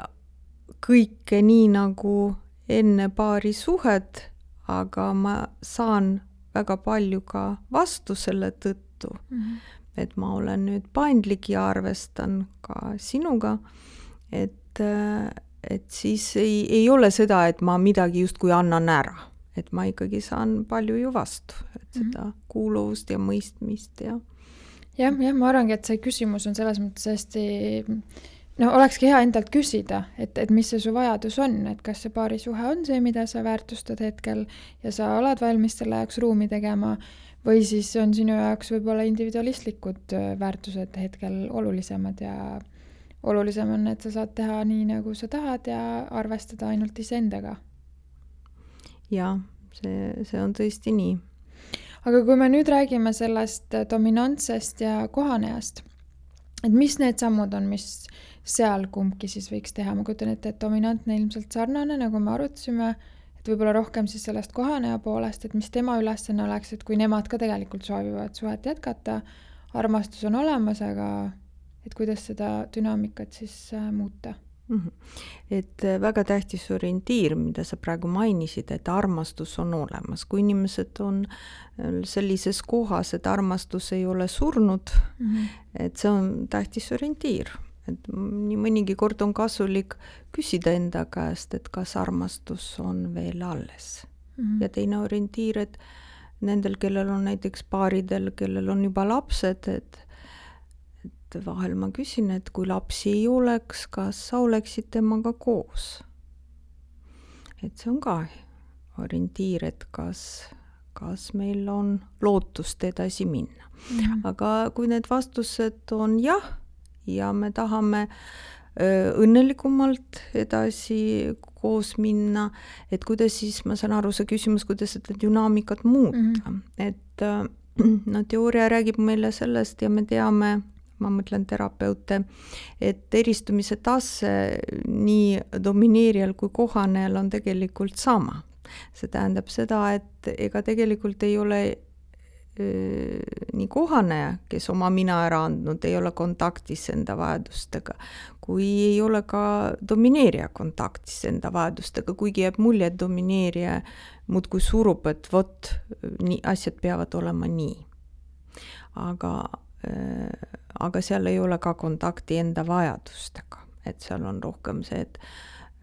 kõike nii nagu enne paari suhet, aga ma saan väga palju ka vastu selle tõttu, et ma olen nüüd paindlik ja arvestan ka sinuga, et siis ei ole seda, et ma midagi justkui annan ära, et ma ikkagi saan palju ju vastu, et seda kuuluvust ja mõistmist ja. Ja, ma arvangi, et see küsimus on selles mõttes hästi no olekski hea endalt küsida, et mis see su vajadus on, et kas see paarisuhe on see, mida sa väärtustad hetkel ja sa oled valmis selle jaoks ruumi tegema, või siis on sinu jaoks võib-olla individualistlikud väärtused hetkel olulisemad ja olulisem on, et sa saad teha nii, nagu sa tahad ja arvestada ainult iseendaga. Jaa, see on tõesti nii. Aga kui me nüüd räägime sellest dominantsest ja kohanejast, et mis need sammud on, mis seal kumbki siis võiks teha? Ma kujutan ette, et dominantne ilmselt sarnane, nagu me arutasime, et võib-olla rohkem siis sellest kohaneja poolest, et mis tema ülesanne oleks, et kui nemad ka tegelikult soovivad suhet jätkata, armastus on olemas, aga et kuidas seda dünaamikat siis muuta? Et väga tähtis orientiir, mida sa praegu mainisid, et armastus on olemas. Kui inimesed on sellises kohas, et armastus ei ole surnud, et see on tähtis orientiir. Et nii mõnigi kord on kasulik küsida enda käest, et kas armastus on veel alles. Ja teine orientiir, et nendel, kellel on näiteks paaridel, kellel on juba lapsed, et vahel ma küsin, et kui lapsi ei oleks, kas sa oleksid temaga koos? Et see on ka orientiir, et kas meil on lootust edasi minna. Aga kui need vastused on jah, ja me tahame õnnelikumalt edasi koos minna, et kuidas siis, ma saan aru, see küsimus, kuidas seda dünaamikat muuta. Et teooria räägib meile sellest ja me teame, ma mõtlen terapeute, et eristumise tase nii domineerijal kui kohanejal on tegelikult sama. See tähendab seda, et ega tegelikult ei ole nii kohaneja, kes oma mina ära andnud, ei ole kontaktis enda vajadustega, kui ei ole ka domineerija kontaktis enda vajadustega, kuigi jääb mulje, et domineerija muudkui surub, et vot, asjad peavad olema nii. Aga seal ei ole ka kontakti enda vajadustega, et seal on rohkem see,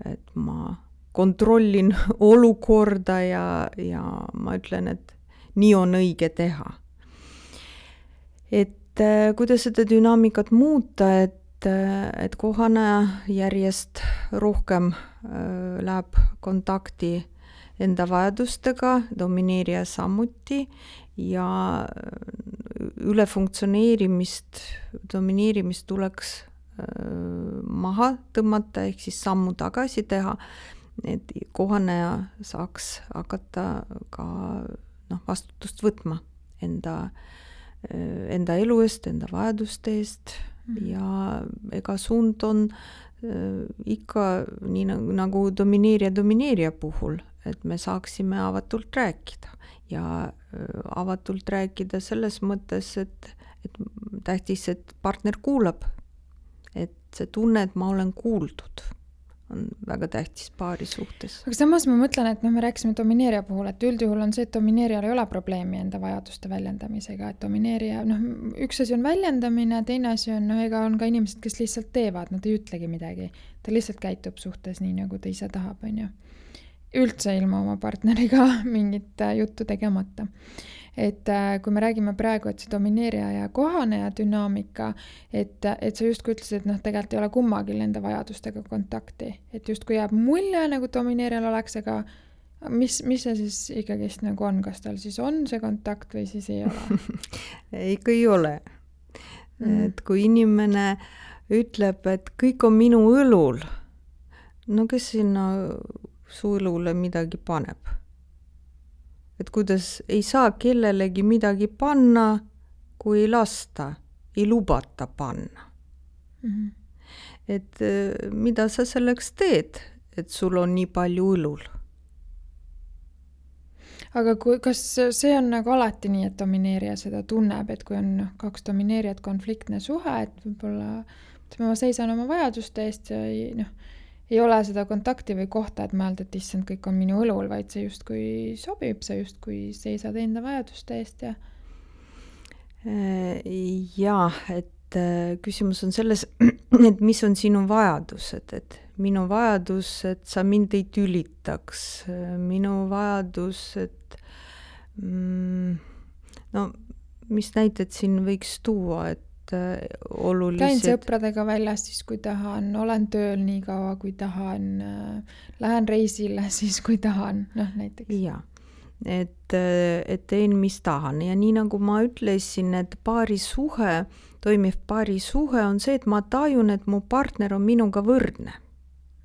et ma kontrollin olukorda ja ma ütlen, et nii on õige teha. Et kuidas seda dünaamikat muuta, et kohaneja järjest rohkem läheb kontakti enda vajadustega, domineerija samuti ja domineerimist tuleks maha tõmmata ehk siis sammu tagasi teha, et kohaneja saaks hakata ka vastutust võtma enda elu eest, enda vajaduste eest ja ega suund on ikka nii nagu domineerija puhul, et me saaksime avatult rääkida ja avatult rääkida selles mõttes, et tähtis, et partner kuulab, et see tunne, et ma olen kuuldud, on väga tähtis paari suhtes. Aga samas ma mõtlen, et me rääkisime domineerija puhul, et üldjuhul on see, et domineerijal ei ole probleemi enda vajaduste väljendamisega, et domineerija, üks asi on väljendamine, teine asi on, ega on ka inimesed, kes lihtsalt teevad, nad ei ütlegi midagi, ta lihtsalt käitub suhtes nii, nagu ta ise tahab, on ju. Üldse ilma oma partneriga mingit juttu tegemata. Et kui me räägime praegu, et see domineerija ja kohaneja dünaamika, et sa justkui ütlesid, et tegelikult ei ole kummagil enda vajadustega kontakti, et justkui jääb mulje, nagu domineerijal oleks, aga mis see siis ikkagist nagu on, kas tal siis on see kontakt või siis ei ole? Ikka ei ole. Et kui inimene ütleb, et kõik on minu õlul, no kes sinna su õlule midagi paneb? Et kuidas ei saa kellelegi midagi panna, kui ei lasta, ei lubata panna. Et mida sa selleks teed, et sul on nii palju õlul? Aga kas see on nagu alati nii, et domineerija seda tunneb, et kui on kaks domineerijat konfliktne suhe, et võib-olla ma seisan oma vajaduste eest ja ei ole seda kontakti või kohta, et mõelda, et issand, kõik on minu õlul, vaid see justkui sobib, sa justkui seisad enda vajaduste eest ja... Jaa, et küsimus on selles, et mis on sinu vajadused, et minu vajadus, et sa mind ei tülitaks, minu vajadus, et mis näited siin võiks tuua, et olulised. Käin sõpradega väljas siis, kui tahan, olen tööl nii kaua, kui tahan, lähen reisile siis, kui tahan, näiteks. Jaa, et teen, mis tahan ja nii nagu ma ütlesin, et toimiv paarisuhe on see, et ma tajun, et mu partner on minuga võrdne.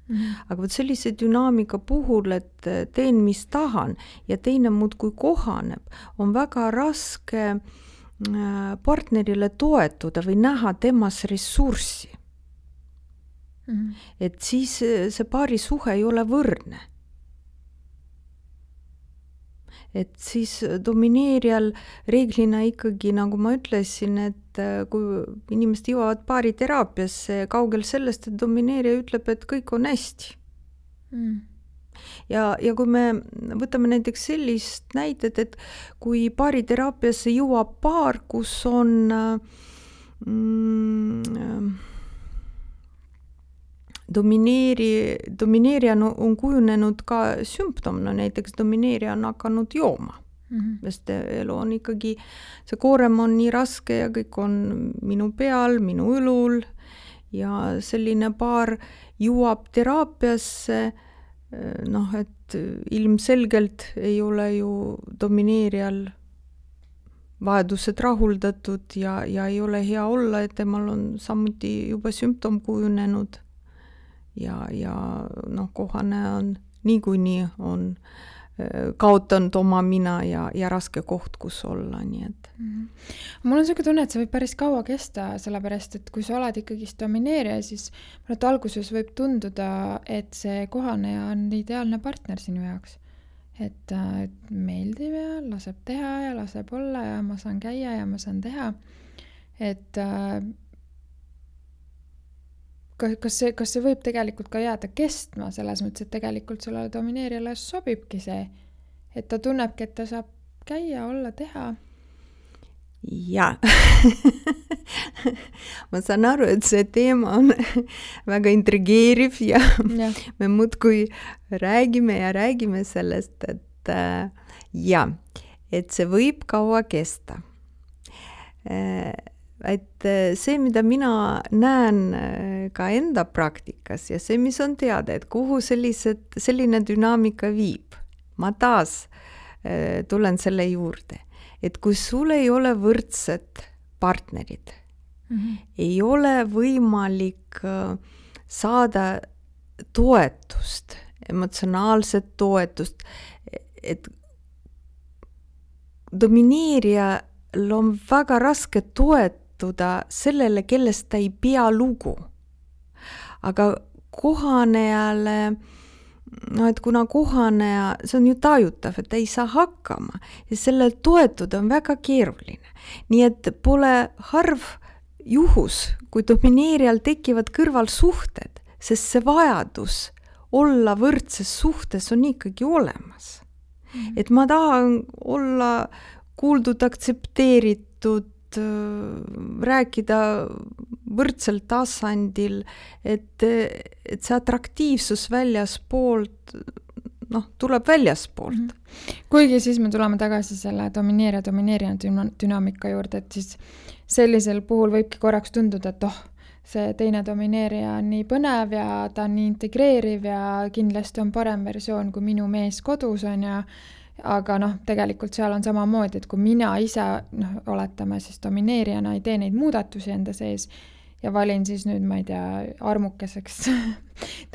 Aga võt sellise dünaamika puhul, et teen, mis tahan ja teine muudkui kohaneb, on väga raske partnerile toetuda või näha temas ressurssi. Et siis see paarisuhe ei ole võrdne. Et siis domineerijal reeglina ikkagi, nagu ma ütlesin, et kui inimesed jõuavad paariteraapiasse, kaugel sellest, et domineerija ütleb, et kõik on hästi. Ja kui me võtame näiteks sellist näidet, et kui paariteraapiasse jõuab paar, kus on domineerija on kujunenud ka sümptom, näiteks domineerija on hakanud jooma. Sest elu on ikkagi, see koorem on nii raske ja kõik on minu peal, minu õlul ja selline paar jõuab teraapiasse, et ilmselgelt ei ole ju domineerijal vajadused rahuldatud ja ei ole hea olla, et temal on samuti juba sümptom kujunenud ja kohane on niikuinii on kaotanud oma mina ja raske koht, kus olla, nii et. Mul on selline tunne, et see võib päris kaua kesta, sellepärast, et kui sa oled ikkagi domineerija, siis alguses võib tunduda, et see kohaneja on ideaalne partner sinu jaoks. Et meeldib ja laseb teha ja laseb olla ja ma saan käia ja ma saan teha. Et kas see võib tegelikult ka jääda kestma selles mõttes, et tegelikult sellele domineerijale sobibki see, et ta tunnebki, et ta saab käia, olla, teha? Jaa. Ma saan aru, et see teema on väga intrigeeriv ja me muudkui räägime sellest, et et see võib kaua kesta. Et see, mida mina näen ka enda praktikas ja see, mis on teada, et kuhu selline dünaamika viib, ma taas tulen selle juurde, et kui sul ei ole võrdsed partnerid, ei ole võimalik saada toetust, emotsionaalset toetust, et domineerijal on väga raske toetuda sellele, kellest ta ei pea lugu. Aga kohanejale, et kuna kohaneja, see on ju tajutav, et ta ei saa hakkama ja sellel toetuda on väga keeruline. Nii et pole harv juhus, kui domineerijal tekivad kõrvalsuhted, sest see vajadus olla võrdses suhtes on ikkagi olemas. Et ma tahan olla kuuldud, aktsepteeritud, rääkida võrdsel tasandil, et see atraktiivsus väljaspoolt, tuleb väljaspoolt. Kuigi siis me tuleme tagasi selle domineerija dünaamika juurde, et siis sellisel puhul võibki korraks tunduda, et see teine domineerija on nii põnev ja ta on nii integreeriv ja kindlasti on parem versioon kui minu mees kodus on ja aga tegelikult seal on samamoodi, et kui mina ise, oletame siis domineerijana ei tee neid muudatusi enda sees ja valin siis nüüd, ma ei tea, armukeseks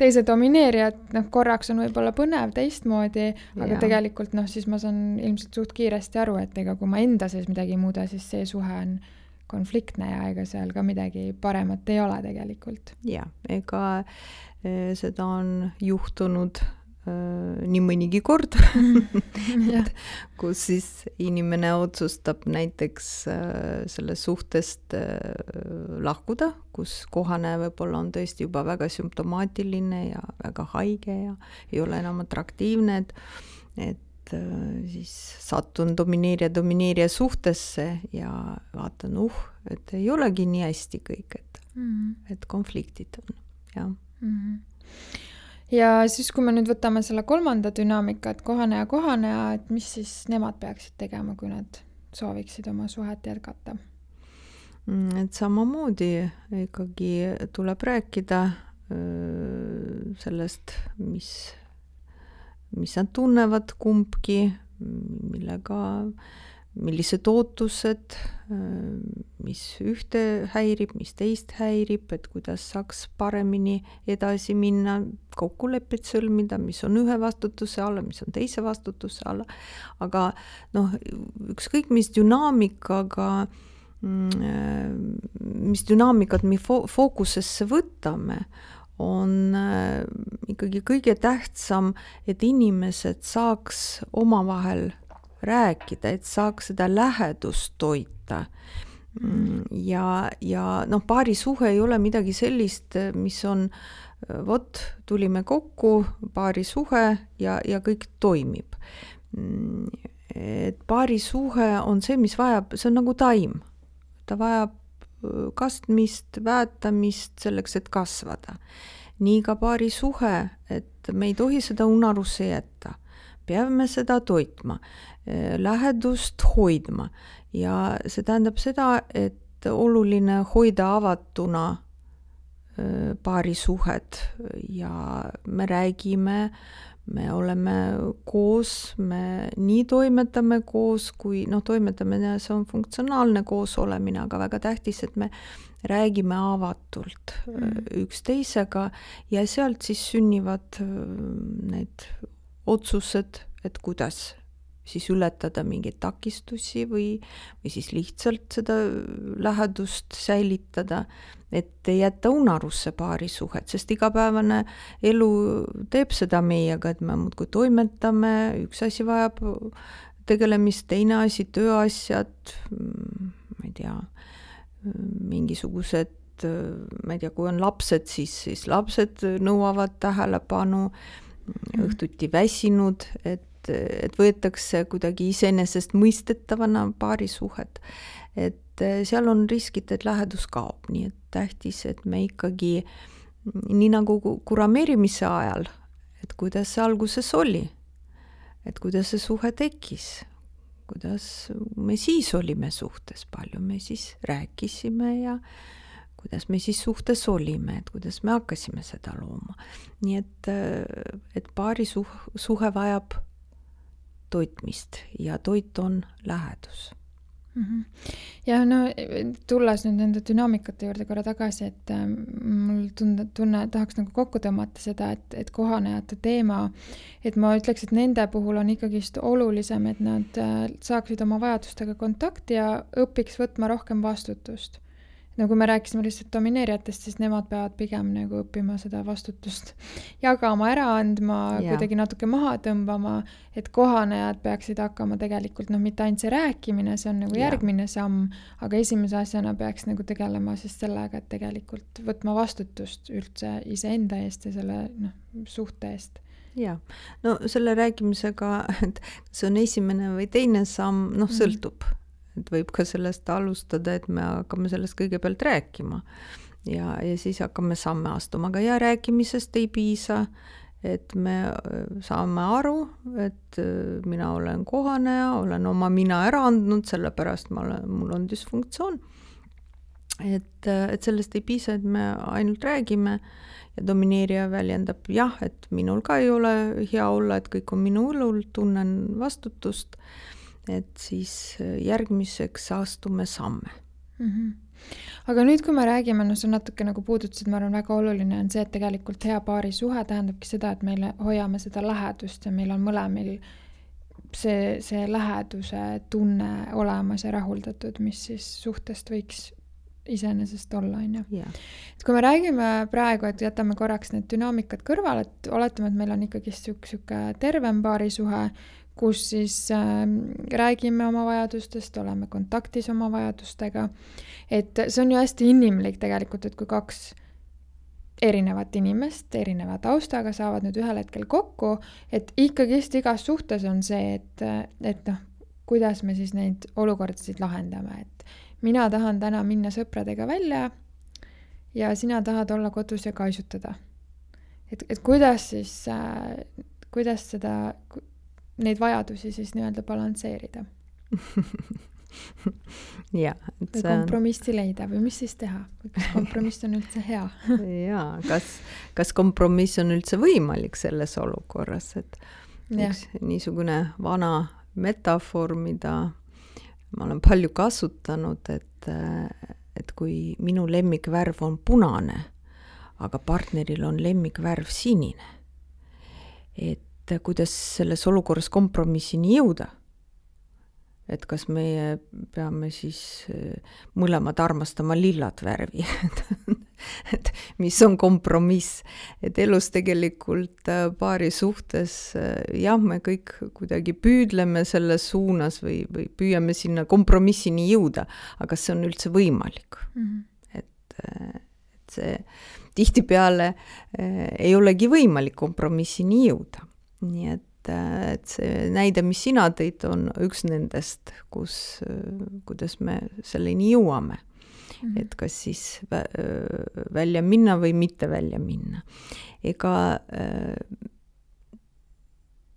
teise domineerija, et korraks on võib-olla põnev teistmoodi, aga tegelikult siis ma saan ilmselt suht kiiresti aru, et ega kui ma enda sees midagi ei muuda, siis see suhe on konfliktne ja ega seal ka midagi paremat ei ole tegelikult. Ja, ega seda on juhtunud nii mõnigi kord, kus siis inimene otsustab näiteks sellest suhtest lahkuda, kus kohane võib-olla on tõesti juba väga sümptomaatiline ja väga haige ja ei ole enam atraktiivne, et siis satun domineerija suhtesse ja vaatan, et ei olegi nii hästi kõik, et konfliktid on, jah. Ja siis, kui me nüüd võtame selle kolmanda dünaamika, et kohaneja, et mis siis nemad peaksid tegema, kui nad sooviksid oma suhet jätkata? et samamoodi ikkagi tuleb rääkida sellest, mis nad tunnevad kumbki, millised ootused, mis ühte häirib, mis teist häirib, et kuidas saaks paremini edasi minna, kokkuleppeid sõlmida, mis on ühe vastutuse alla, mis on teise vastutuse alla. Aga ükskõik mis dünaamikat me fookusesse võtame, on ikkagi kõige tähtsam, et inimesed saaks omavahel rääkida, et saaks seda lähedust toita. Ja paarisuhe ei ole midagi sellist, mis on, tulime kokku, paarisuhe ja kõik toimib. Et paarisuhe on see, mis vajab, see on nagu taim. Ta vajab kastmist, väetamist selleks, et kasvada. Nii ka paarisuhe, et me ei tohi seda unarusse jätta. Peame seda toitma, lähedust hoidma ja see tähendab seda, et oluline hoida avatuna paarisuhed ja me räägime, me oleme koos, me nii toimetame koos, kui toimetamine, see on funktsionaalne koos olemine, aga väga tähtis, et me räägime avatult üksteisega ja sealt siis sünnivad need otsused, et kuidas siis ületada mingeid takistusi või siis lihtsalt seda lähedust säilitada, et ei jätta unarusse paarisuhet, sest igapäevane elu teeb seda meiega, et me muudkui toimetame, üks asi vajab tegelemist, teine asi, tööasjad, ma ei tea, mingisugused, ma ei tea, kui on lapsed, siis lapsed nõuavad tähelepanu, õhtuti väsinud, et võetakse kuidagi iseenesest mõistetavana paarisuhet. Et seal on riskid, et lähedus kaob, nii et tähtis, et me ikkagi, nii nagu kurameerimise ajal, et kuidas see alguses oli, et kuidas see suhe tekkis, kuidas me siis olime suhtes, palju me siis rääkisime ja kuidas me siis suhtes olime, et kuidas me hakkasime seda looma. Nii et paarisuhe vajab toitmist ja toit on lähedus. Ja tulles nüüd nende dünaamikate juurde korra tagasi, et mul tunne tahaks nagu kokku tõmmata seda, et kohanejate teema, et ma ütleks, et nende puhul on ikkagist olulisem, et nad saaksid oma vajadustega kontakti ja õpiks võtma rohkem vastutust. Kui me rääkisime lihtsalt domineerijatest, siis nemad peavad pigem nagu õppima seda vastutust jagama, ära andma, kuidagi natuke maha tõmbama, et kohanejad peaksid hakkama tegelikult, mitte ainult see rääkimine, see on nagu järgmine samm, aga esimese asjana peaks nagu tegelema siis sellega, et tegelikult võtma vastutust üldse iseenda eest ja selle suhte eest. Ja, selle rääkimisega, et see on esimene või teine samm, sõltub. Et võib ka sellest alustada, et me hakkame sellest kõigepealt rääkima ja siis hakkame samme astuma, aga rääkimisest ei piisa, et me saame aru, et mina olen kohaneja, olen oma mina ära andnud, sellepärast mul on dysfunktsioon. Et sellest ei piisa, et me ainult räägime ja domineerija väljendab et minul ka ei ole hea olla, et kõik on minu õlul, tunnen vastutust. Et siis järgmiseks astume samme. Aga nüüd, kui me räägime, see natuke nagu puudutasid, ma arvan, väga oluline on see, et tegelikult hea paarisuhe tähendabki seda, et meil hoiame seda lähedust ja meil on mõlemil see läheduse tunne olemas ja rahuldatud, mis siis suhtest võiks iseenesest olla, on ju. Et kui me räägime praegu, et jätame korraks need dünaamikad kõrval, et oletame, et meil on ikkagi siuke tervem paarisuhe, kus siis räägime oma vajadustest, oleme kontaktis oma vajadustega. Et see on ju hästi inimlik tegelikult, et kui kaks erinevat inimest, erineva taustaga saavad nüüd ühel hetkel kokku, et ikkagist igas suhtes on see, et kuidas me siis neid olukordasid lahendame. Et mina tahan täna minna sõpradega välja ja sina tahad olla kodus ja kaisutada. Et kuidas siis, kuidas neid vajadusi siis nii-öelda balansseerida? ja, või kompromissi leida või mis siis teha? Kas kompromiss on üldse hea? jaa, kas kompromiss on üldse võimalik selles olukorras, et üks niisugune vana metafoor, mida ma olen palju kasutanud, et kui minu lemmikvärv on punane, aga partneril on lemmikvärv sinine, et kuidas selles olukorras kompromissini jõuda. Et kas meie peame siis mõlemad armastama lillat värvi, et mis on kompromiss, et elus tegelikult paari suhtes, jah, me kõik kuidagi püüdleme selles suunas või püüame sinna kompromissini jõuda, aga see on üldse võimalik. Et see tihtipeale ei olegi võimalik kompromissini jõuda, nii et see näide, mis sina tõid, on üks nendest, kuidas me selleni jõuame. Et kas siis välja minna või mitte välja minna. Ega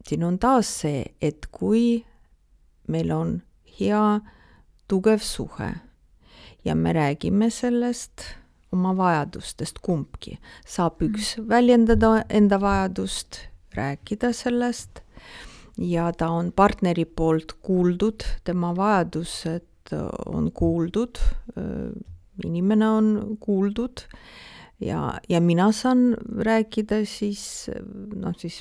siin on taas see, et kui meil on hea, tugev suhe ja me räägime sellest oma vajadustest kumbki, saab üks väljendada enda vajadust, rääkida sellest ja ta on partneri poolt kuuldud, tema vajadused on kuuldud, inimene on kuuldud ja mina saan rääkida siis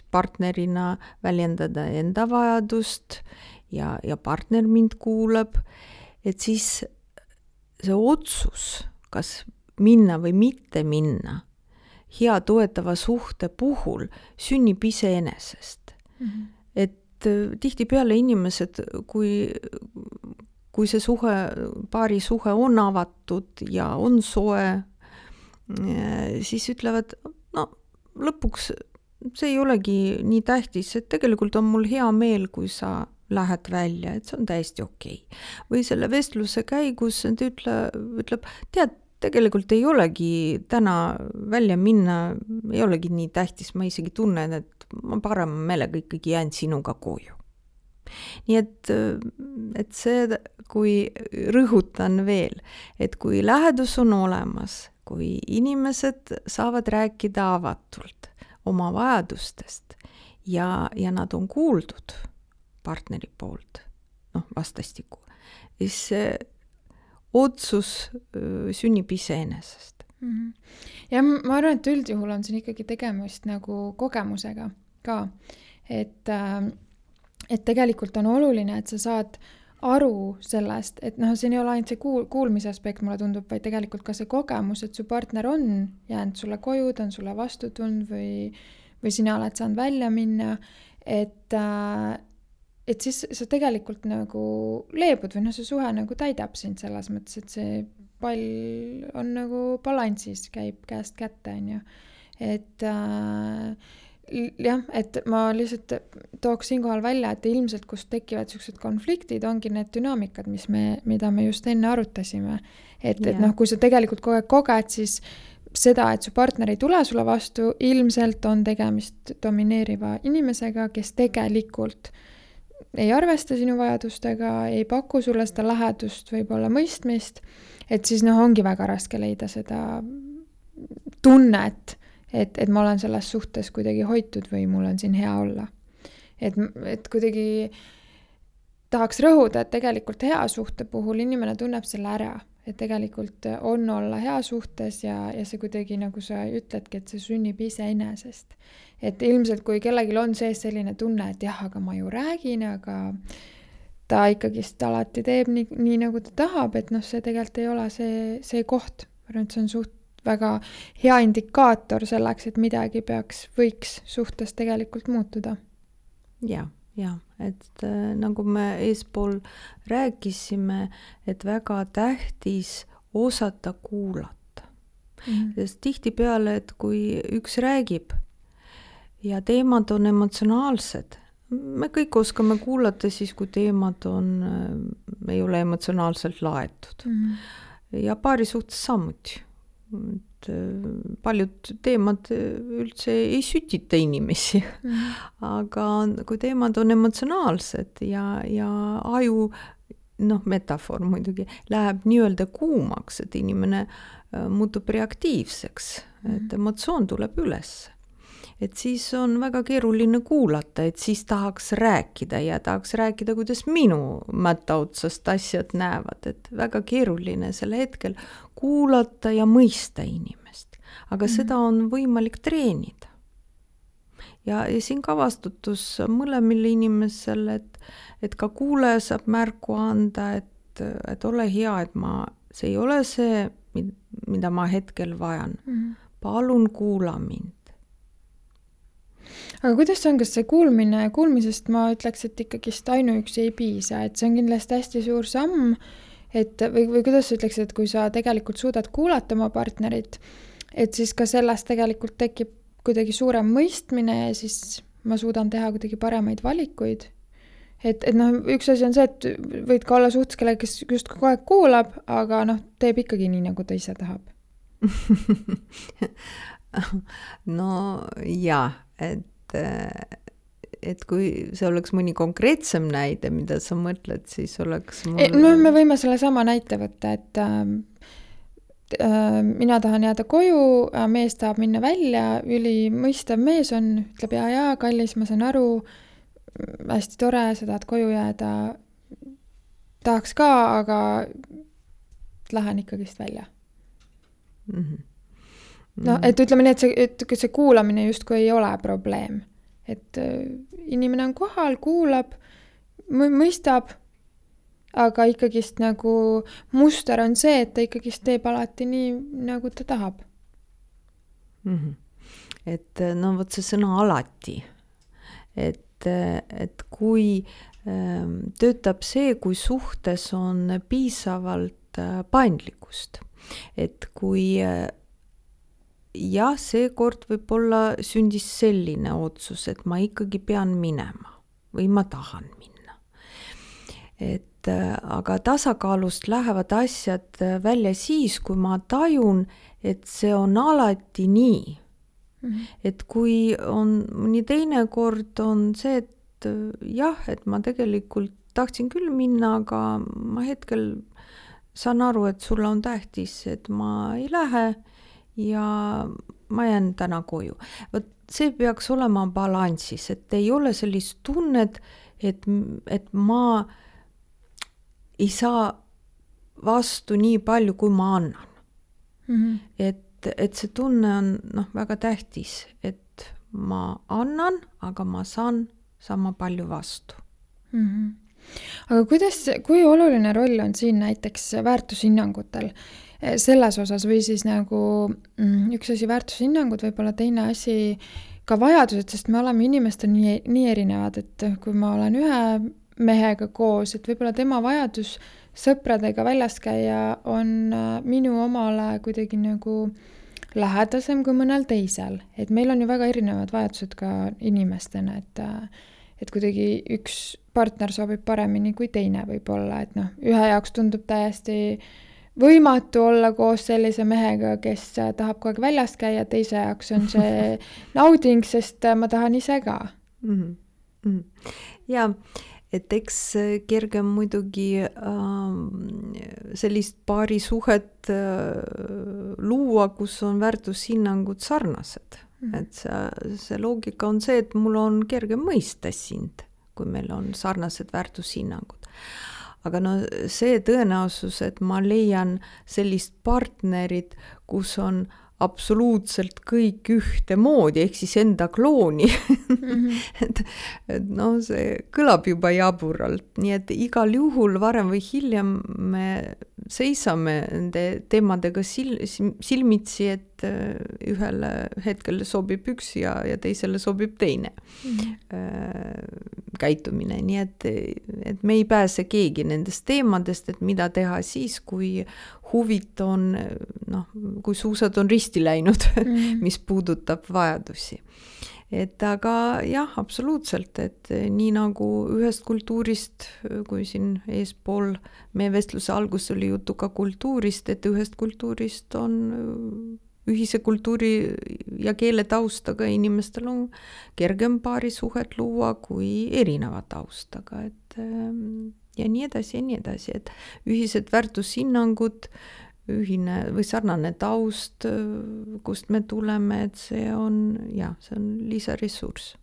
partnerina väljendada enda vajadust ja partner mind kuulab, et siis see otsus, kas minna või mitte minna, hea toetava suhte puhul sünnib iseenesest. Et tihtipeale inimesed, kui see suhe, paari suhe on avatud ja on soe, siis ütlevad, no lõpuks see ei olegi nii tähtis, et tegelikult on mul hea meel, kui sa lähed välja, et see on täiesti okei. Või selle vestluse käigus ütleb, tead, tegelikult ei olegi täna välja minna, ei olegi nii tähtis, ma isegi tunnen, et ma parema meelega ikkagi jään sinuga koju. Nii et see, kui rõhutan veel, et kui lähedus on olemas, kui inimesed saavad rääkida avatult oma vajadustest ja nad on kuuldud partneri poolt, vastastikku, siis otsus sünnib iseenesest. Ja ma arvan, et üldjuhul on siin ikkagi tegemist nagu kogemusega ka, et tegelikult on oluline, et sa saad aru sellest, et siin ei ole ainult see kuulmise aspekt, mulle tundub, vaid tegelikult ka see kogemus, et su partner on jäänud sulle koju, ta on sulle vastu tulnud või sina oled saanud välja minna, et siis sa tegelikult nagu leebud või see suhe nagu täidab sind selles mõttes, et see pall on nagu balansis, käib käest kätte, on ju. Et jah, et ma lihtsalt tooks siinkohal välja, et ilmselt kust tekivad sellised konfliktid, ongi need dünaamikad, mida me just enne arutasime. Et kui sa tegelikult kogu aeg koged, siis seda, et su partner ei tule sulle vastu, ilmselt on tegemist domineeriva inimesega, kes tegelikult ei arvesta sinu vajadustega, ei paku sulle seda lähedust, võib-olla mõistmist, et siis ongi väga raske leida seda tunnet, et ma olen selles suhtes kuidagi hoitud või mul on siin hea olla. Et kuidagi tahaks rõhuda, et tegelikult hea suhte puhul inimene tunneb selle ära, et tegelikult on olla hea suhtes ja see kuidagi, nagu sa ütledki, et see sünnib iseenesest. Et ilmselt, kui kellelgi on sees selline tunne, et jah, aga ma ju räägin, aga ta ikkagist alati teeb nii nagu ta tahab, et see tegelikult ei ole see koht. Ma arvan, et see on väga hea indikaator selleks, et midagi võiks suhtes tegelikult muutuda. Ja, et nagu me eespool rääkisime, et väga tähtis osata kuulata. Sest tihtipeale, et kui üks räägib ja teemad on emotsionaalsed, me kõik oskame kuulata siis, kui teemad ei ole emotsionaalselt laetud. Ja paari suhtes samuti. Paljud teemad üldse ei sütita inimesi, aga kui teemad on emotsionaalsed ja aju metafoor muidugi, läheb nii-öelda kuumaks, et inimene muutub reaktiivseks, et emotsioon tuleb üles. Et siis on väga keeruline kuulata, et siis tahaks rääkida ja tahaks rääkida, kuidas minu mätta otsast asjad näevad, et väga keeruline selle hetkel kuulata ja mõista inimest. Aga seda on võimalik treenida. Ja siin ka vastutus mõlemile inimesele, et ka kuulaja saab märku anda, et ole hea, et see ei ole see, mida ma hetkel vajan. Palun kuula mind. Aga kuidas on, kas see kuulmisest ma ütleks, et ikkagist ainuüksi ei piisa, et see on kindlasti hästi suur samm, või kuidas sa ütleks, et kui sa tegelikult suudad kuulata oma partnerit, et siis ka sellest tegelikult tekib kuidagi suurem mõistmine ja siis ma suudan teha kuidagi paremaid valikuid. Et üks asi on see, et võid ka olla suhtes, kellega, kes just kogu aeg kuulab, aga teeb ikkagi nii, nagu ta ise tahab. No jaa, et kui see oleks mõni konkreetsem näide, mida sa mõtled, siis oleks me võime selle sama näite võtta, et mina tahan jääda koju, mees tahab minna välja, mõistav mees on, ütleb jaa, kallis, ma saan aru, hästi tore, sa tahad koju jääda, tahaks ka, aga lähen ikkagist välja. Et ütleme nii, et see kuulamine justkui ei ole probleem. Et inimene on kohal, kuulab, mõistab, aga ikkagist nagu muster on see, et ta ikkagist teeb alati nii, nagu ta tahab. Et vot see sõna alati. Et kui töötab see, kui suhtes on piisavalt paindlikkust. Et kui seekord võib-olla sündis selline otsus, et ma ikkagi pean minema või ma tahan minna. Aga tasakaalust lähevad asjad välja siis, kui ma tajun, et see on alati nii. Et kui on mõni teine kord on see, et et ma tegelikult tahtsin küll minna, aga ma hetkel saan aru, et sulle on tähtis, et ma ei lähe ja ma jään täna koju. Vot see peaks olema balansis, et ei ole sellist tunnet, et ma ei saa vastu nii palju, kui ma annan. Et see tunne on väga tähtis, et ma annan, aga ma saan sama palju vastu. Aga kui oluline roll on siin näiteks väärtushinnangutel selles osas või siis nagu üks asi väärtushinnangud, võib-olla teine asi ka vajadused, sest me oleme inimestel nii erinevad, et kui ma olen ühe mehega koos, et võib-olla tema vajadus sõpradega väljas käia on minu omale kuidagi nagu lähedasem kui mõnel teisel. Et meil on ju väga erinevad vajadused ka inimestena, et kuidagi üks partner sobib paremini kui teine võib-olla, et ühe jaoks tundub täiesti võimatu olla koos sellise mehega, kes tahab kogu aeg väljas käia, teise jaoks on see nauding, sest ma tahan ise ka. Ja et eks kergem muidugi sellist paari suhet luua, kus on väärtushinnangud sarnased. Et see loogika on see, et mul on kergem mõista sind, kui meil on sarnased väärtushinnangud. Aga see tõenäosus, et ma leian sellist partnerit, kus on absoluutselt kõik ühte moodi, ehk siis enda klooni. et see kõlab juba jaburalt, nii et igal juhul varem või hiljem me seisame nende teemadega silmitsi, et ühele hetkel sobib üks ja teisele sobib teine käitumine. Nii et me ei pääse keegi nendest teemadest, et mida teha siis, kui huvit on, kui suusad on risti läinud, mis puudutab vajadusi. Et aga jah, absoluutselt, et nii nagu ühest kultuurist, kui siin eespool meie vestluse algus oli jutu ka kultuurist, et ühest kultuurist on ühise kultuuri ja keele taustaga inimestel on kergem paari suhet luua kui erineva taustaga, et ja nii edasi, et ühised väärtushinnangud, ühine või sarnane taust, kust me tuleme, et see on lisaressurss.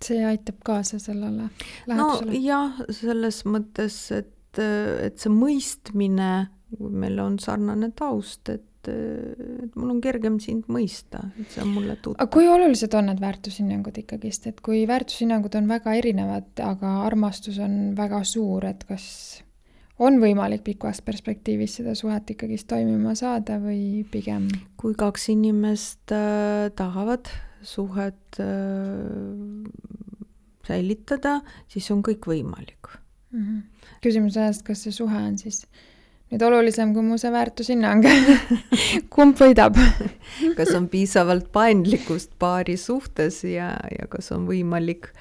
See aitab kaasa sellele lähedusele? No jah, selles mõttes, et see mõistmine, kui meil on sarnane taust, et mul on kergem sind mõista, et see on mulle tuttav. Aga kui olulised on need väärtushinnangud ikkagist, et kui väärtushinnangud on väga erinevad, aga armastus on väga suur, et kas on võimalik pikas perspektiivis seda suhet ikkagist toimima saada või pigem? Kui kaks inimest tahavad suhet säilitada, siis on kõik võimalik. Küsimus on, kas see suhe on siis nüüd olulisem kui mu see väärtushinnang. Kumb võidab? Kas on piisavalt paindlikkust paari suhtes ja kas on võimalik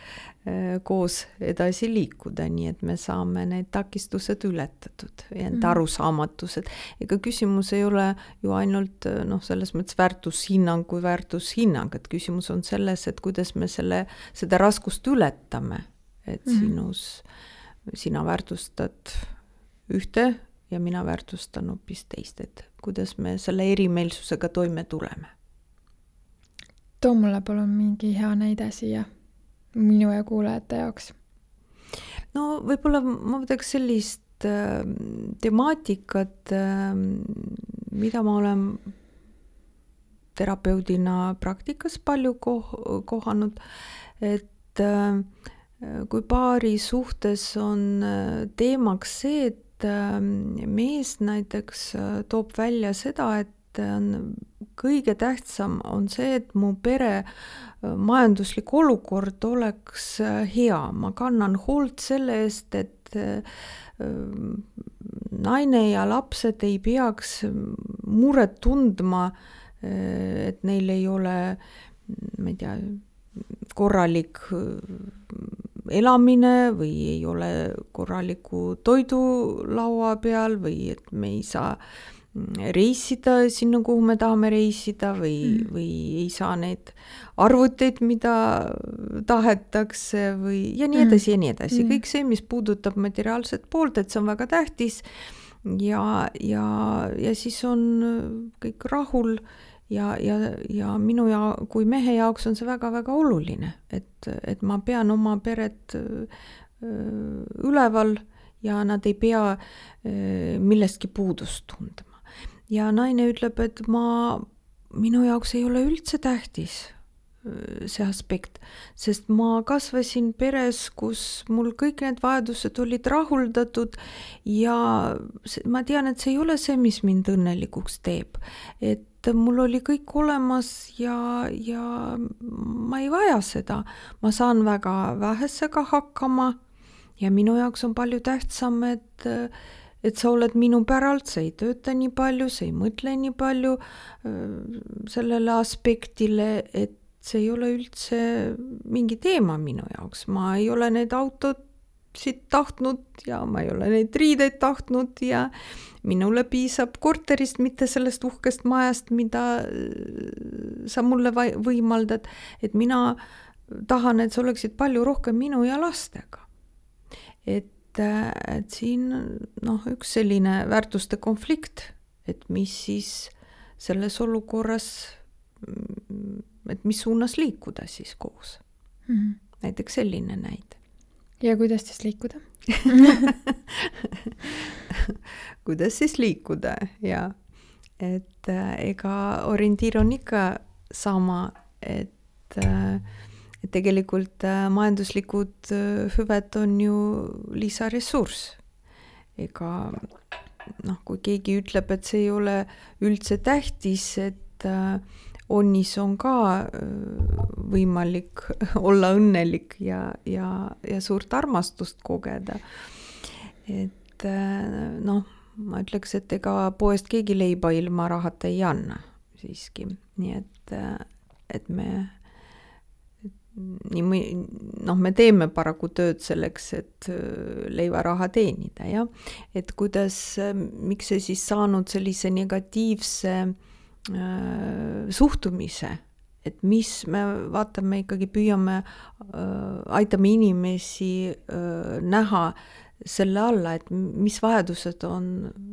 koos edasi liikuda, nii et me saame need takistused ületatud ja need arusaamatused. Ega küsimus ei ole ju ainult selles mõttes väärtushinnang kui väärtushinnang, et küsimus on selles, et kuidas me seda raskust ületame, et sina väärtustad ühte ja mina väärtustan hoopis teist, et kuidas me selle erimeelsusega toime tuleme. Too mulle palun mingi hea näide siia minu ja kuulajate jaoks. No võib-olla ma võtaks sellist temaatikat, mida ma olen terapeudina praktikas palju kohanud, et kui paari suhtes on teemaks see, et mees näiteks toob välja seda, et kõige tähtsam on see, et mu pere majanduslik olukord oleks hea. Ma kannan hoolt selle eest, et naine ja lapsed ei peaks muret tundma, et neil ei ole, ma ei tea, korralik elamine või ei ole korraliku toidu laua peal või et me ei saa reisida sinna, kuhu me tahame reisida või ei saa neid arvuteid, mida tahetakse või ja nii edasi ja nii edasi. Kõik see, mis puudutab materiaalset poolt, et see on väga tähtis ja siis on kõik rahul ja minu kui mehe jaoks on see väga-väga oluline, et ma pean oma peret üleval ja nad ei pea millestki puudust tundma. Ja naine ütleb, et minu jaoks ei ole üldse tähtis see aspekt, sest ma kasvasin peres, kus mul kõik need vajadused olid rahuldatud ja ma tean, et see ei ole see, mis mind õnnelikuks teeb, et mul oli kõik olemas ja ma ei vaja seda. Ma saan väga vähesega hakkama ja minu jaoks on palju tähtsam, et sa oled minu päralt, sa ei tööta nii palju, sa ei mõtle nii palju sellele aspektile, et see ei ole üldse mingi teema minu jaoks. Ma ei ole need autod siit tahtnud ja ma ei ole neid riideid tahtnud ja minule piisab korterist, mitte sellest uhkest majast, mida sa mulle võimaldad, et mina tahan, et sa oleksid palju rohkem minu ja lastega. Et siin üks selline väärtuste konflikt, et mis siis selles olukorras, et mis suunas liikuda siis koos. Näiteks selline näide. Ja kuidas siis liikuda? Kuidas siis liikuda, ja. Et ega orientiir on ikka sama, et tegelikult majanduslikud hüved on ju lisaressurss. Ega kui keegi ütleb, et see ei ole üldse tähtis, et onnis on ka võimalik olla õnnelik ja suurt armastust kogeda. Et ma ütleks, et ega poest keegi leiba ilma rahata ei anna siiski. Nii et me teeme paraku tööd selleks, et leivaraha teenida, ja? Et miks see siis saanud sellise negatiivse suhtumise, et mis me vaatame ikkagi, püüame, aitame inimesi näha selle alla, et mis vajadused on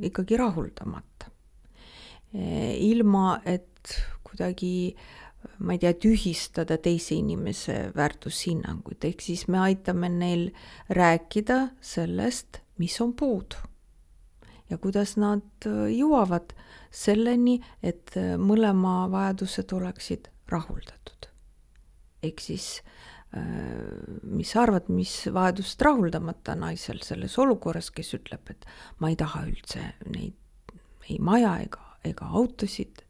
ikkagi rahuldamata. Ilma, et kuidagi, ma ei tea, tühistada teise inimese väärtushinnanguid, ehk siis me aitame neil rääkida sellest, mis on puudu. Ja kuidas nad jõuavad selleni, et mõlema vajadused oleksid rahuldatud. Ehk siis, mis sa arvad, mis vajadust rahuldamata naisel selles olukorras, kes ütleb, et ma ei taha üldse neid ei maja ega autosid.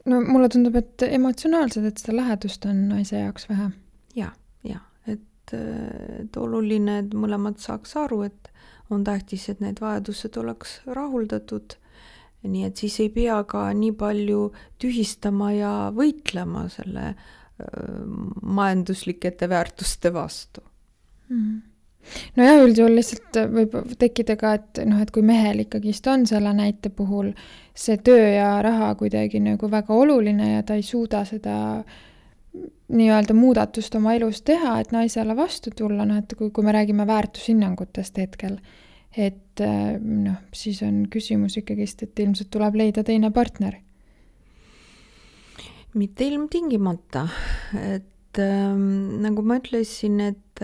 No mulle tundub, et emotsionaalselt, et seda lähedust on naise jaoks vähe. Ja, et oluline, et mõlemad saaks aru, et on tähtis, et need vajadused oleks rahuldatud. Nii et siis ei pea ka nii palju tühistama ja võitlema selle majanduslikete väärtuste vastu. No jah, üldjuhul lihtsalt võib tekkida ka, et kui mehel ikkagist on selle näite puhul see töö ja raha kuidagi nagu väga oluline ja ta ei suuda seda nii-öelda muudatust oma elus teha, et naisele vastu tulla, et kui me räägime väärtushinnangutest hetkel, et siis on küsimus ikkagist, et ilmselt tuleb leida teine partner. Mitte ilmtingimata, et nagu ma ütlesin, et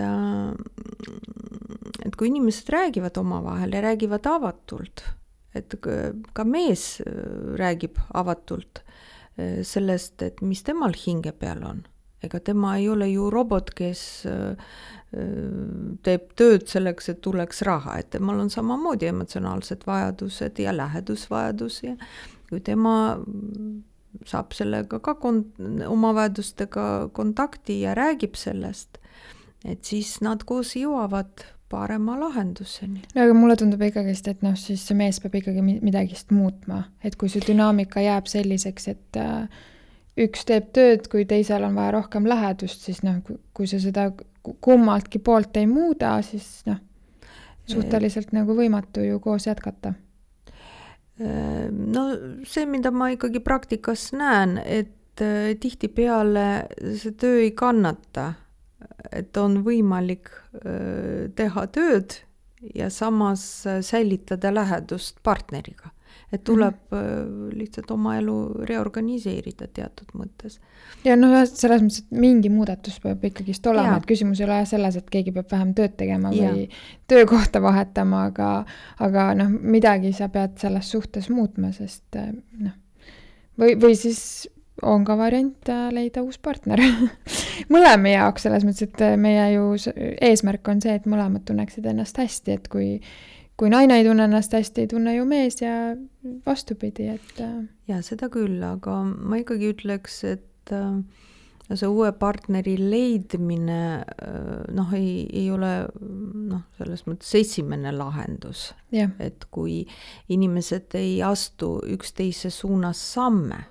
kui inimesed räägivad omavahel ja räägivad avatult, et ka mees räägib avatult sellest, et mis temal hinge peal on. Ega tema ei ole ju robot, kes teeb tööd selleks, et tuleks raha, et temal on samamoodi emotsionaalsed vajadused ja lähedusvajadus ja kui tema saab sellega ka oma vajadustega kontakti ja räägib sellest, et siis nad koos jõuavad parema lahenduseni. No aga mulle tundub ikkagist, et siis see mees peab ikkagi midagist muutma, et kui see dünaamika jääb selliseks, et üks teeb tööd, kui teisel on vaja rohkem lähedust, siis kui see seda kummaltki poolt ei muuda, siis suhteliselt nagu võimatu ju koos jätkata. No see, mida ma ikkagi praktikas näen, et tihtipeale see töö ei kannata, et on võimalik teha tööd ja samas säilitada lähedust partneriga. Et tuleb lihtsalt oma elu reorganiseerida teatud mõttes. Ja selles mõttes, et mingi muudatus peab ikkagist olema, et küsimus ei ole selles, et keegi peab vähem tööd tegema või töökohta vahetama, aga midagi sa pead selles suhtes muutma, sest või siis on ka variant leida uus partner. Mõlema jaoks selles mõttes, et meie ju eesmärk on see, et mõlemad tunneksid ennast hästi, et kui naine ei tunne ennast hästi, ei tunne ju mees ja vastupidi, et... Ja seda küll, aga ma ikkagi ütleks, et see uue partneri leidmine ei ole selles mõttes esimene lahendus. Ja. Et kui inimesed ei astu üksteise suunas samme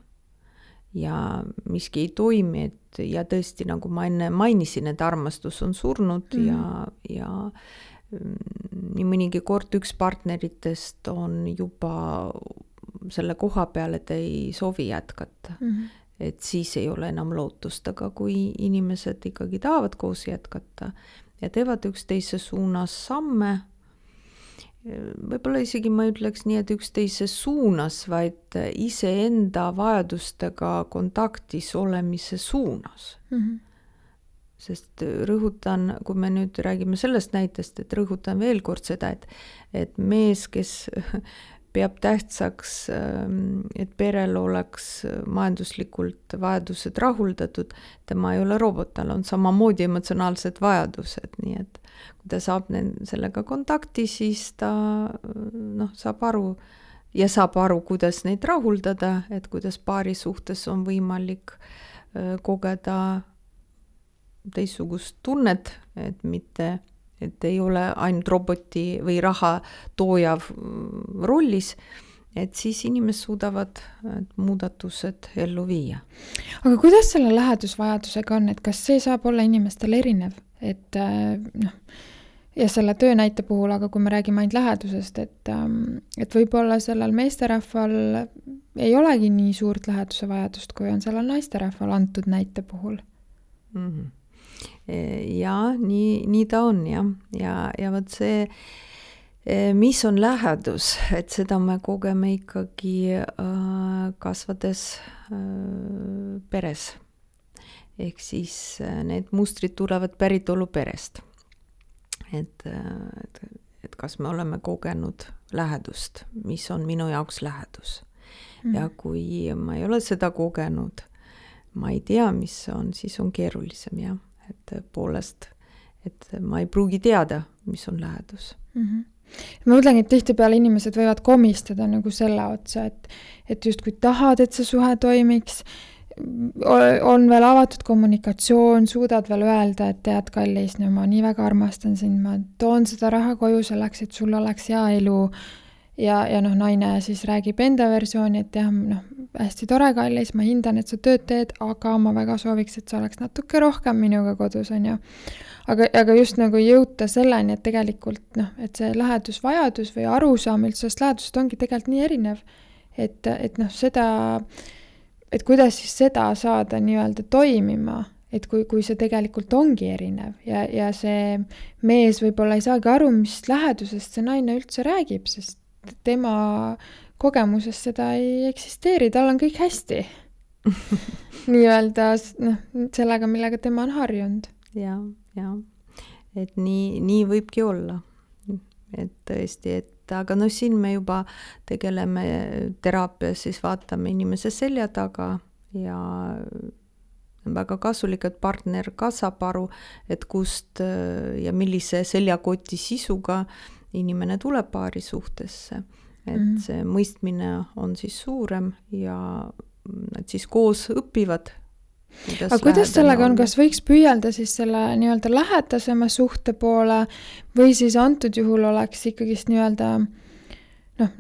ja miski ei toimi, ja tõesti, nagu ma enne mainisin, et armastus on surnud ja nii mõnigi kord üks partneritest on juba selle koha peal, et ei soovi jätkata. Et siis ei ole enam lootust, aga kui inimesed ikkagi tahavad koos jätkata ja teevad üksteise suunas samme, võib-olla isegi ma ütleks nii, et üksteise suunas, vaid iseenda vajadustega kontaktis olemise suunas. Sest rõhutan, kui me nüüd räägime sellest näitest, et rõhutan veel kord seda, et mees, kes peab tähtsaks, et perel oleks majanduslikult vajadused rahuldatud, tema ei ole robot, tal on samamoodi emotsionaalsed vajadused, nii et kui ta saab sellega kontakti, siis ta saab aru, kuidas neid rahuldada, et kuidas paari suhtes on võimalik kogeda teistsugust tunnet, et mitte, et ei ole ainult roboti või raha toojav rollis, et siis inimesed suudavad muudatused ellu viia. Aga kuidas selle lähedusvajadusega on, et kas see saab olla inimestel erinev, et ja selle töönäite puhul, aga kui me räägime ainult lähedusest, et võib-olla sellel meesterahval ei olegi nii suurt läheduse vajadust, kui on sellel naisterahval antud näite puhul? Ja nii ta on ja võt see, mis on lähedus, et seda me kogeme ikkagi kasvades peres. Ehk siis need mustrid tulevad päritolu perest. Et kas me oleme kogenud lähedust, mis on minu jaoks lähedus. Ja kui ma ei ole seda kogenud, ma ei tea, mis see on, siis on keerulisem ja et poolest, et ma ei pruugi teada, mis on lähedus. Ma mõtlengi, et tihtipeale inimesed võivad komistada nagu selle otsa, et just kui tahad, et see suhe toimiks, on veel avatud kommunikatsioon, suudad veel öelda, et tead, kallis, no ma nii väga armastan sind, ma toon seda raha koju selleks, et sul oleks hea elu ja naine siis räägib enda versiooni, et jah, hästi tore, kallis, ma hindan, et sa tööd teed, aga ma väga sooviks, et sa oleks natuke rohkem minuga kodus, on ju. Aga just nagu jõuta selleni, et tegelikult et see lähedusvajadus või arusaam üldse sellest lähedusest ongi tegelikult nii erinev, et seda, et kuidas siis seda saada nii-öelda toimima, et kui see tegelikult ongi erinev ja see mees võib-olla ei saagi aru, mis lähedusest see naine üldse räägib, sest tema kogemuses seda ei eksisteeri, tal on kõik hästi. Nii-öelda sellega, millega tema on harjunud. Ja. Et nii võibki olla. Et tõesti, aga siin me juba tegeleme teraapias, siis vaatame inimese selja taga ja väga kasulik, et partner ka saab aru, et kust ja millise seljakoti sisuga inimene tuleb paari suhtesse. Et see mõistmine on siis suurem ja nad siis koos õpivad. Aga kuidas sellega on, kas võiks püüelda siis selle nii-öelda lähedasema suhte poole või siis antud juhul oleks ikkagist nii-öelda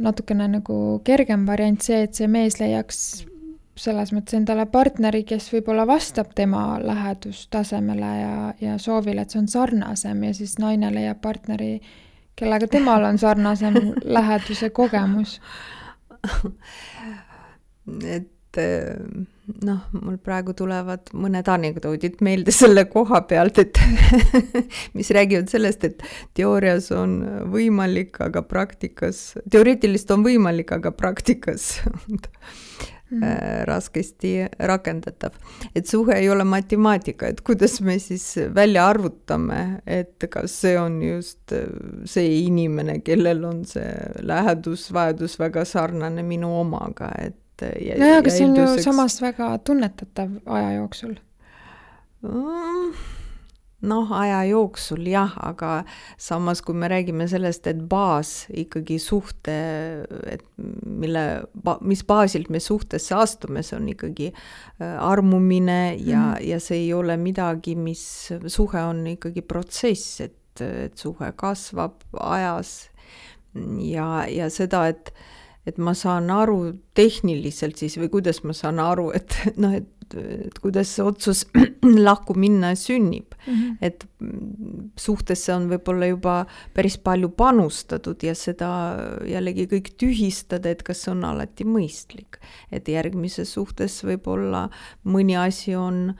natukene nagu kergem variant see, et see mees leiaks selles mõttes endale partneri, kes võib-olla vastab tema lähedustasemele ja soovile, et see on sarnasem ja siis naine leiab partneri, kellega temal on sarnasem läheduse kogemus. Et mul praegu tulevad mõned anekdoodid meelde selle koha pealt, et mis räägivad sellest, et teoorias on võimalik, aga praktikas, teoreetiliselt on võimalik, aga praktikas raskesti rakendatav. Et suhe ei ole matemaatika, et kuidas me siis välja arvutame, et kas see on just see inimene, kellel on see lähedusvajadus väga sarnane minu omaga, et aga see on ju samas väga tunnetatav aja jooksul. Aja jooksul jah, aga samas kui me räägime sellest, et baas ikkagi suhte, et mis baasilt me suhtesse astume, see on ikkagi armumine ja see ei ole midagi, mis suhe on ikkagi protsess, et suhe kasvab ajas ja seda, et ma saan aru tehniliselt siis või kuidas ma saan aru, et kuidas see otsus lahku minna sünnib. Et suhtesse on võib-olla juba päris palju panustatud ja seda jällegi kõik tühistada, et kas see on alati mõistlik. Et järgmises suhtes võib-olla mõni asi on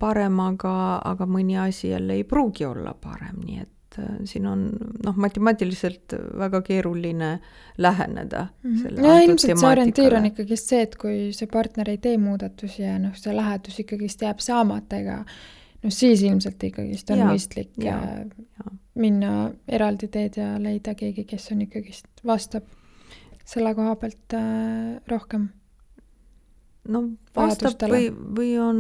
parem, aga mõni asi jälle ei pruugi olla parem, nii et siin on matemaatiliselt väga keeruline läheneda. Ja ilmselt see orientiir on ikkagi see, et kui see partner ei tee muudatusi ja see lähedus ikkagi jääb saamata, siis ilmselt ikkagi on mõistlik minna eraldi teed ja leida keegi, kes on ikkagi vastab selle koha pealt rohkem. Vastab või on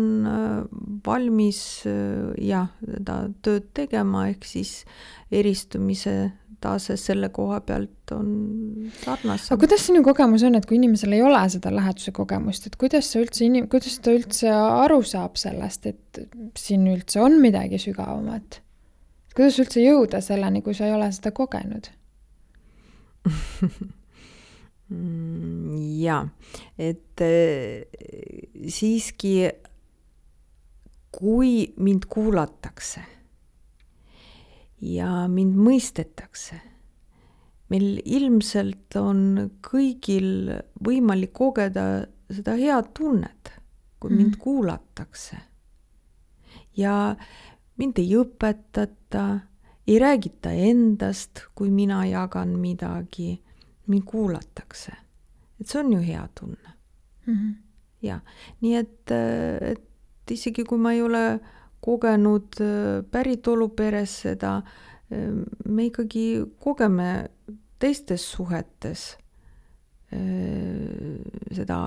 valmis seda tööd tegema, ehk siis eristumise tase selle koha pealt on sarnasem. Aga kuidas sinu kogemus on, et kui inimesel ei ole seda läheduse kogemust, et kuidas ta üldse aru saab sellest, et siin üldse on midagi sügavamat? Kuidas üldse jõuda selleni, kui sa ei ole seda kogenud? Et siiski kui mind kuulatakse ja mind mõistetakse, meil ilmselt on kõigil võimalik kogeda seda head tunnet, kui mind kuulatakse ja mind ei õpetata, ei räägita endast, kui mina jagan midagi, mind kuulatakse. Et see on ju hea tunne. Ja, nii et isegi kui ma ei ole kogenud päritolu peres seda, me ikkagi kogeme teistes suhetes seda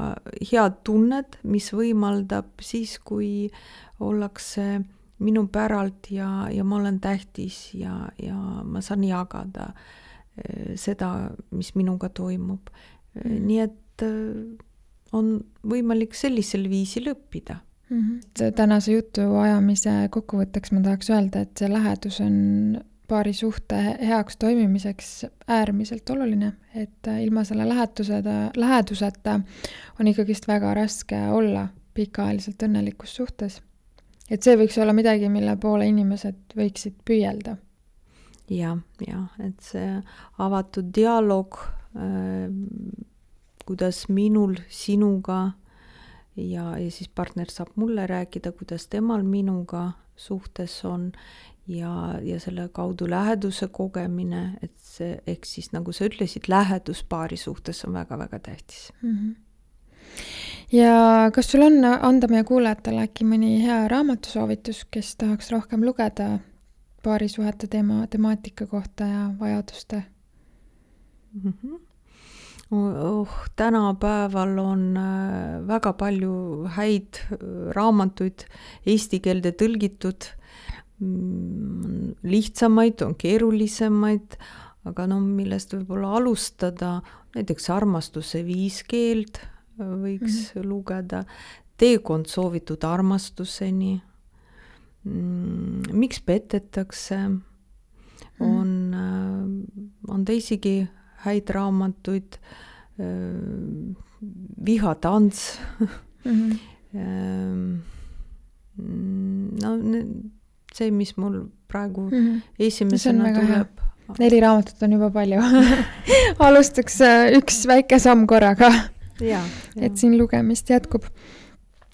head tunnet, mis võimaldab siis, kui ollakse minu päralt ja ma olen tähtis ja ma saan jagada seda, mis minuga toimub. Nii et on võimalik sellisel viisil õppida. Tänase jutu ajamise kokkuvõtteks ma tahaks öelda, et see lähedus on paari suhte heaks toimimiseks äärmiselt oluline, et ilma selle läheduseta on ikkagist väga raske olla pikaajaliselt õnnelikus suhtes. Et see võiks olla midagi, mille poole inimesed võiksid püüelda. Ja, et see avatud dialoog, kuidas minul sinuga ja siis partner saab mulle rääkida, kuidas temal minuga suhtes on ja selle kaudu läheduse kogemine, et see, ehk siis nagu sa ütlesid, lähedus paari suhtes on väga-väga tähtis. Ja kas sul on anda meie kuulajatele äkki mõni hea raamatusoovitus, kes tahaks rohkem lugeda paarisuhete temaatika kohta ja vajaduste? Tänapäeval on väga palju häid raamatuid eesti keelde tõlgitud, lihtsamaid, on keerulisemaid, aga millest võib-olla alustada, näiteks Armastuse 5 keeld võiks lugeda, Teekond soovitud armastuseni, Miks petetakse, on teisigi häid raamatuid, Vihatants, see, mis mul praegu esimesena tuleb. 4 raamatut on juba palju. Alustaks üks väike samm korraga, et siin lugemist jätkub.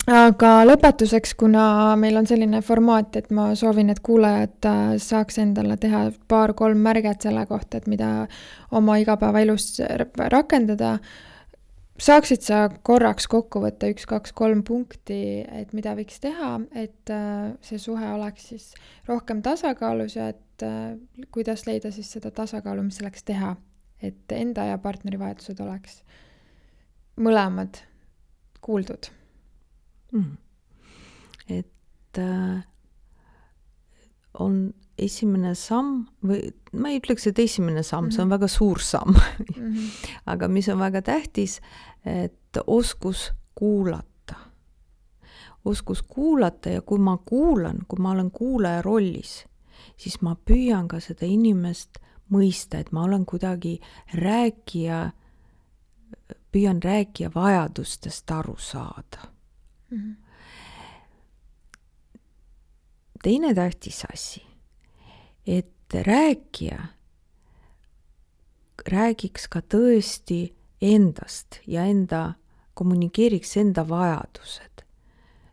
Aga lõpetuseks, kuna meil on selline formaat, et ma soovin, et kuulajad saaks endale teha 2-3 märget selle kohta, et mida oma igapäevaelus rakendada, saaksid sa korraks kokku võtta 1, 2, 3 punkti, et mida võiks teha, et see suhe oleks siis rohkem tasakaalus ja et kuidas leida siis seda tasakaalu, mis selleks teha, et enda ja partneri vajadused oleks mõlemad kuuldud. Et on esimene samm, või ma ei ütleks, et esimene samm, see on väga suur samm, aga mis on väga tähtis, et oskus kuulata. Oskus kuulata ja kui ma kuulan, kui ma olen kuulaja rollis, siis ma püüan ka seda inimest mõista, et ma olen kuidagi püüan rääkija vajadustest aru saada. Teine tähtis asi, et rääkija räägiks ka tõesti endast ja kommunikeeriks enda vajadused,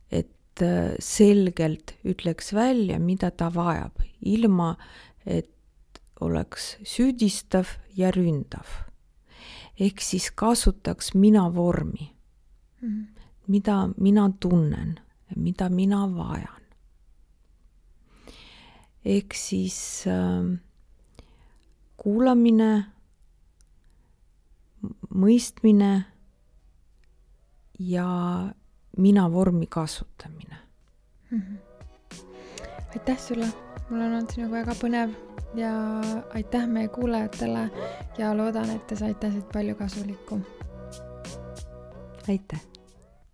et selgelt ütleks välja, mida ta vajab, ilma et oleks süüdistav ja ründav. Ehk siis kasutaks mina vormi, mida mina tunnen, mida mina vajan. Ehk siis kuulamine, mõistmine ja mina vormi kasutamine. Aitäh sulle, mul on olnud sinuga väga põnev ja aitäh meie kuulajatele ja loodan, et te saite siit palju kasulikku. Aitäh!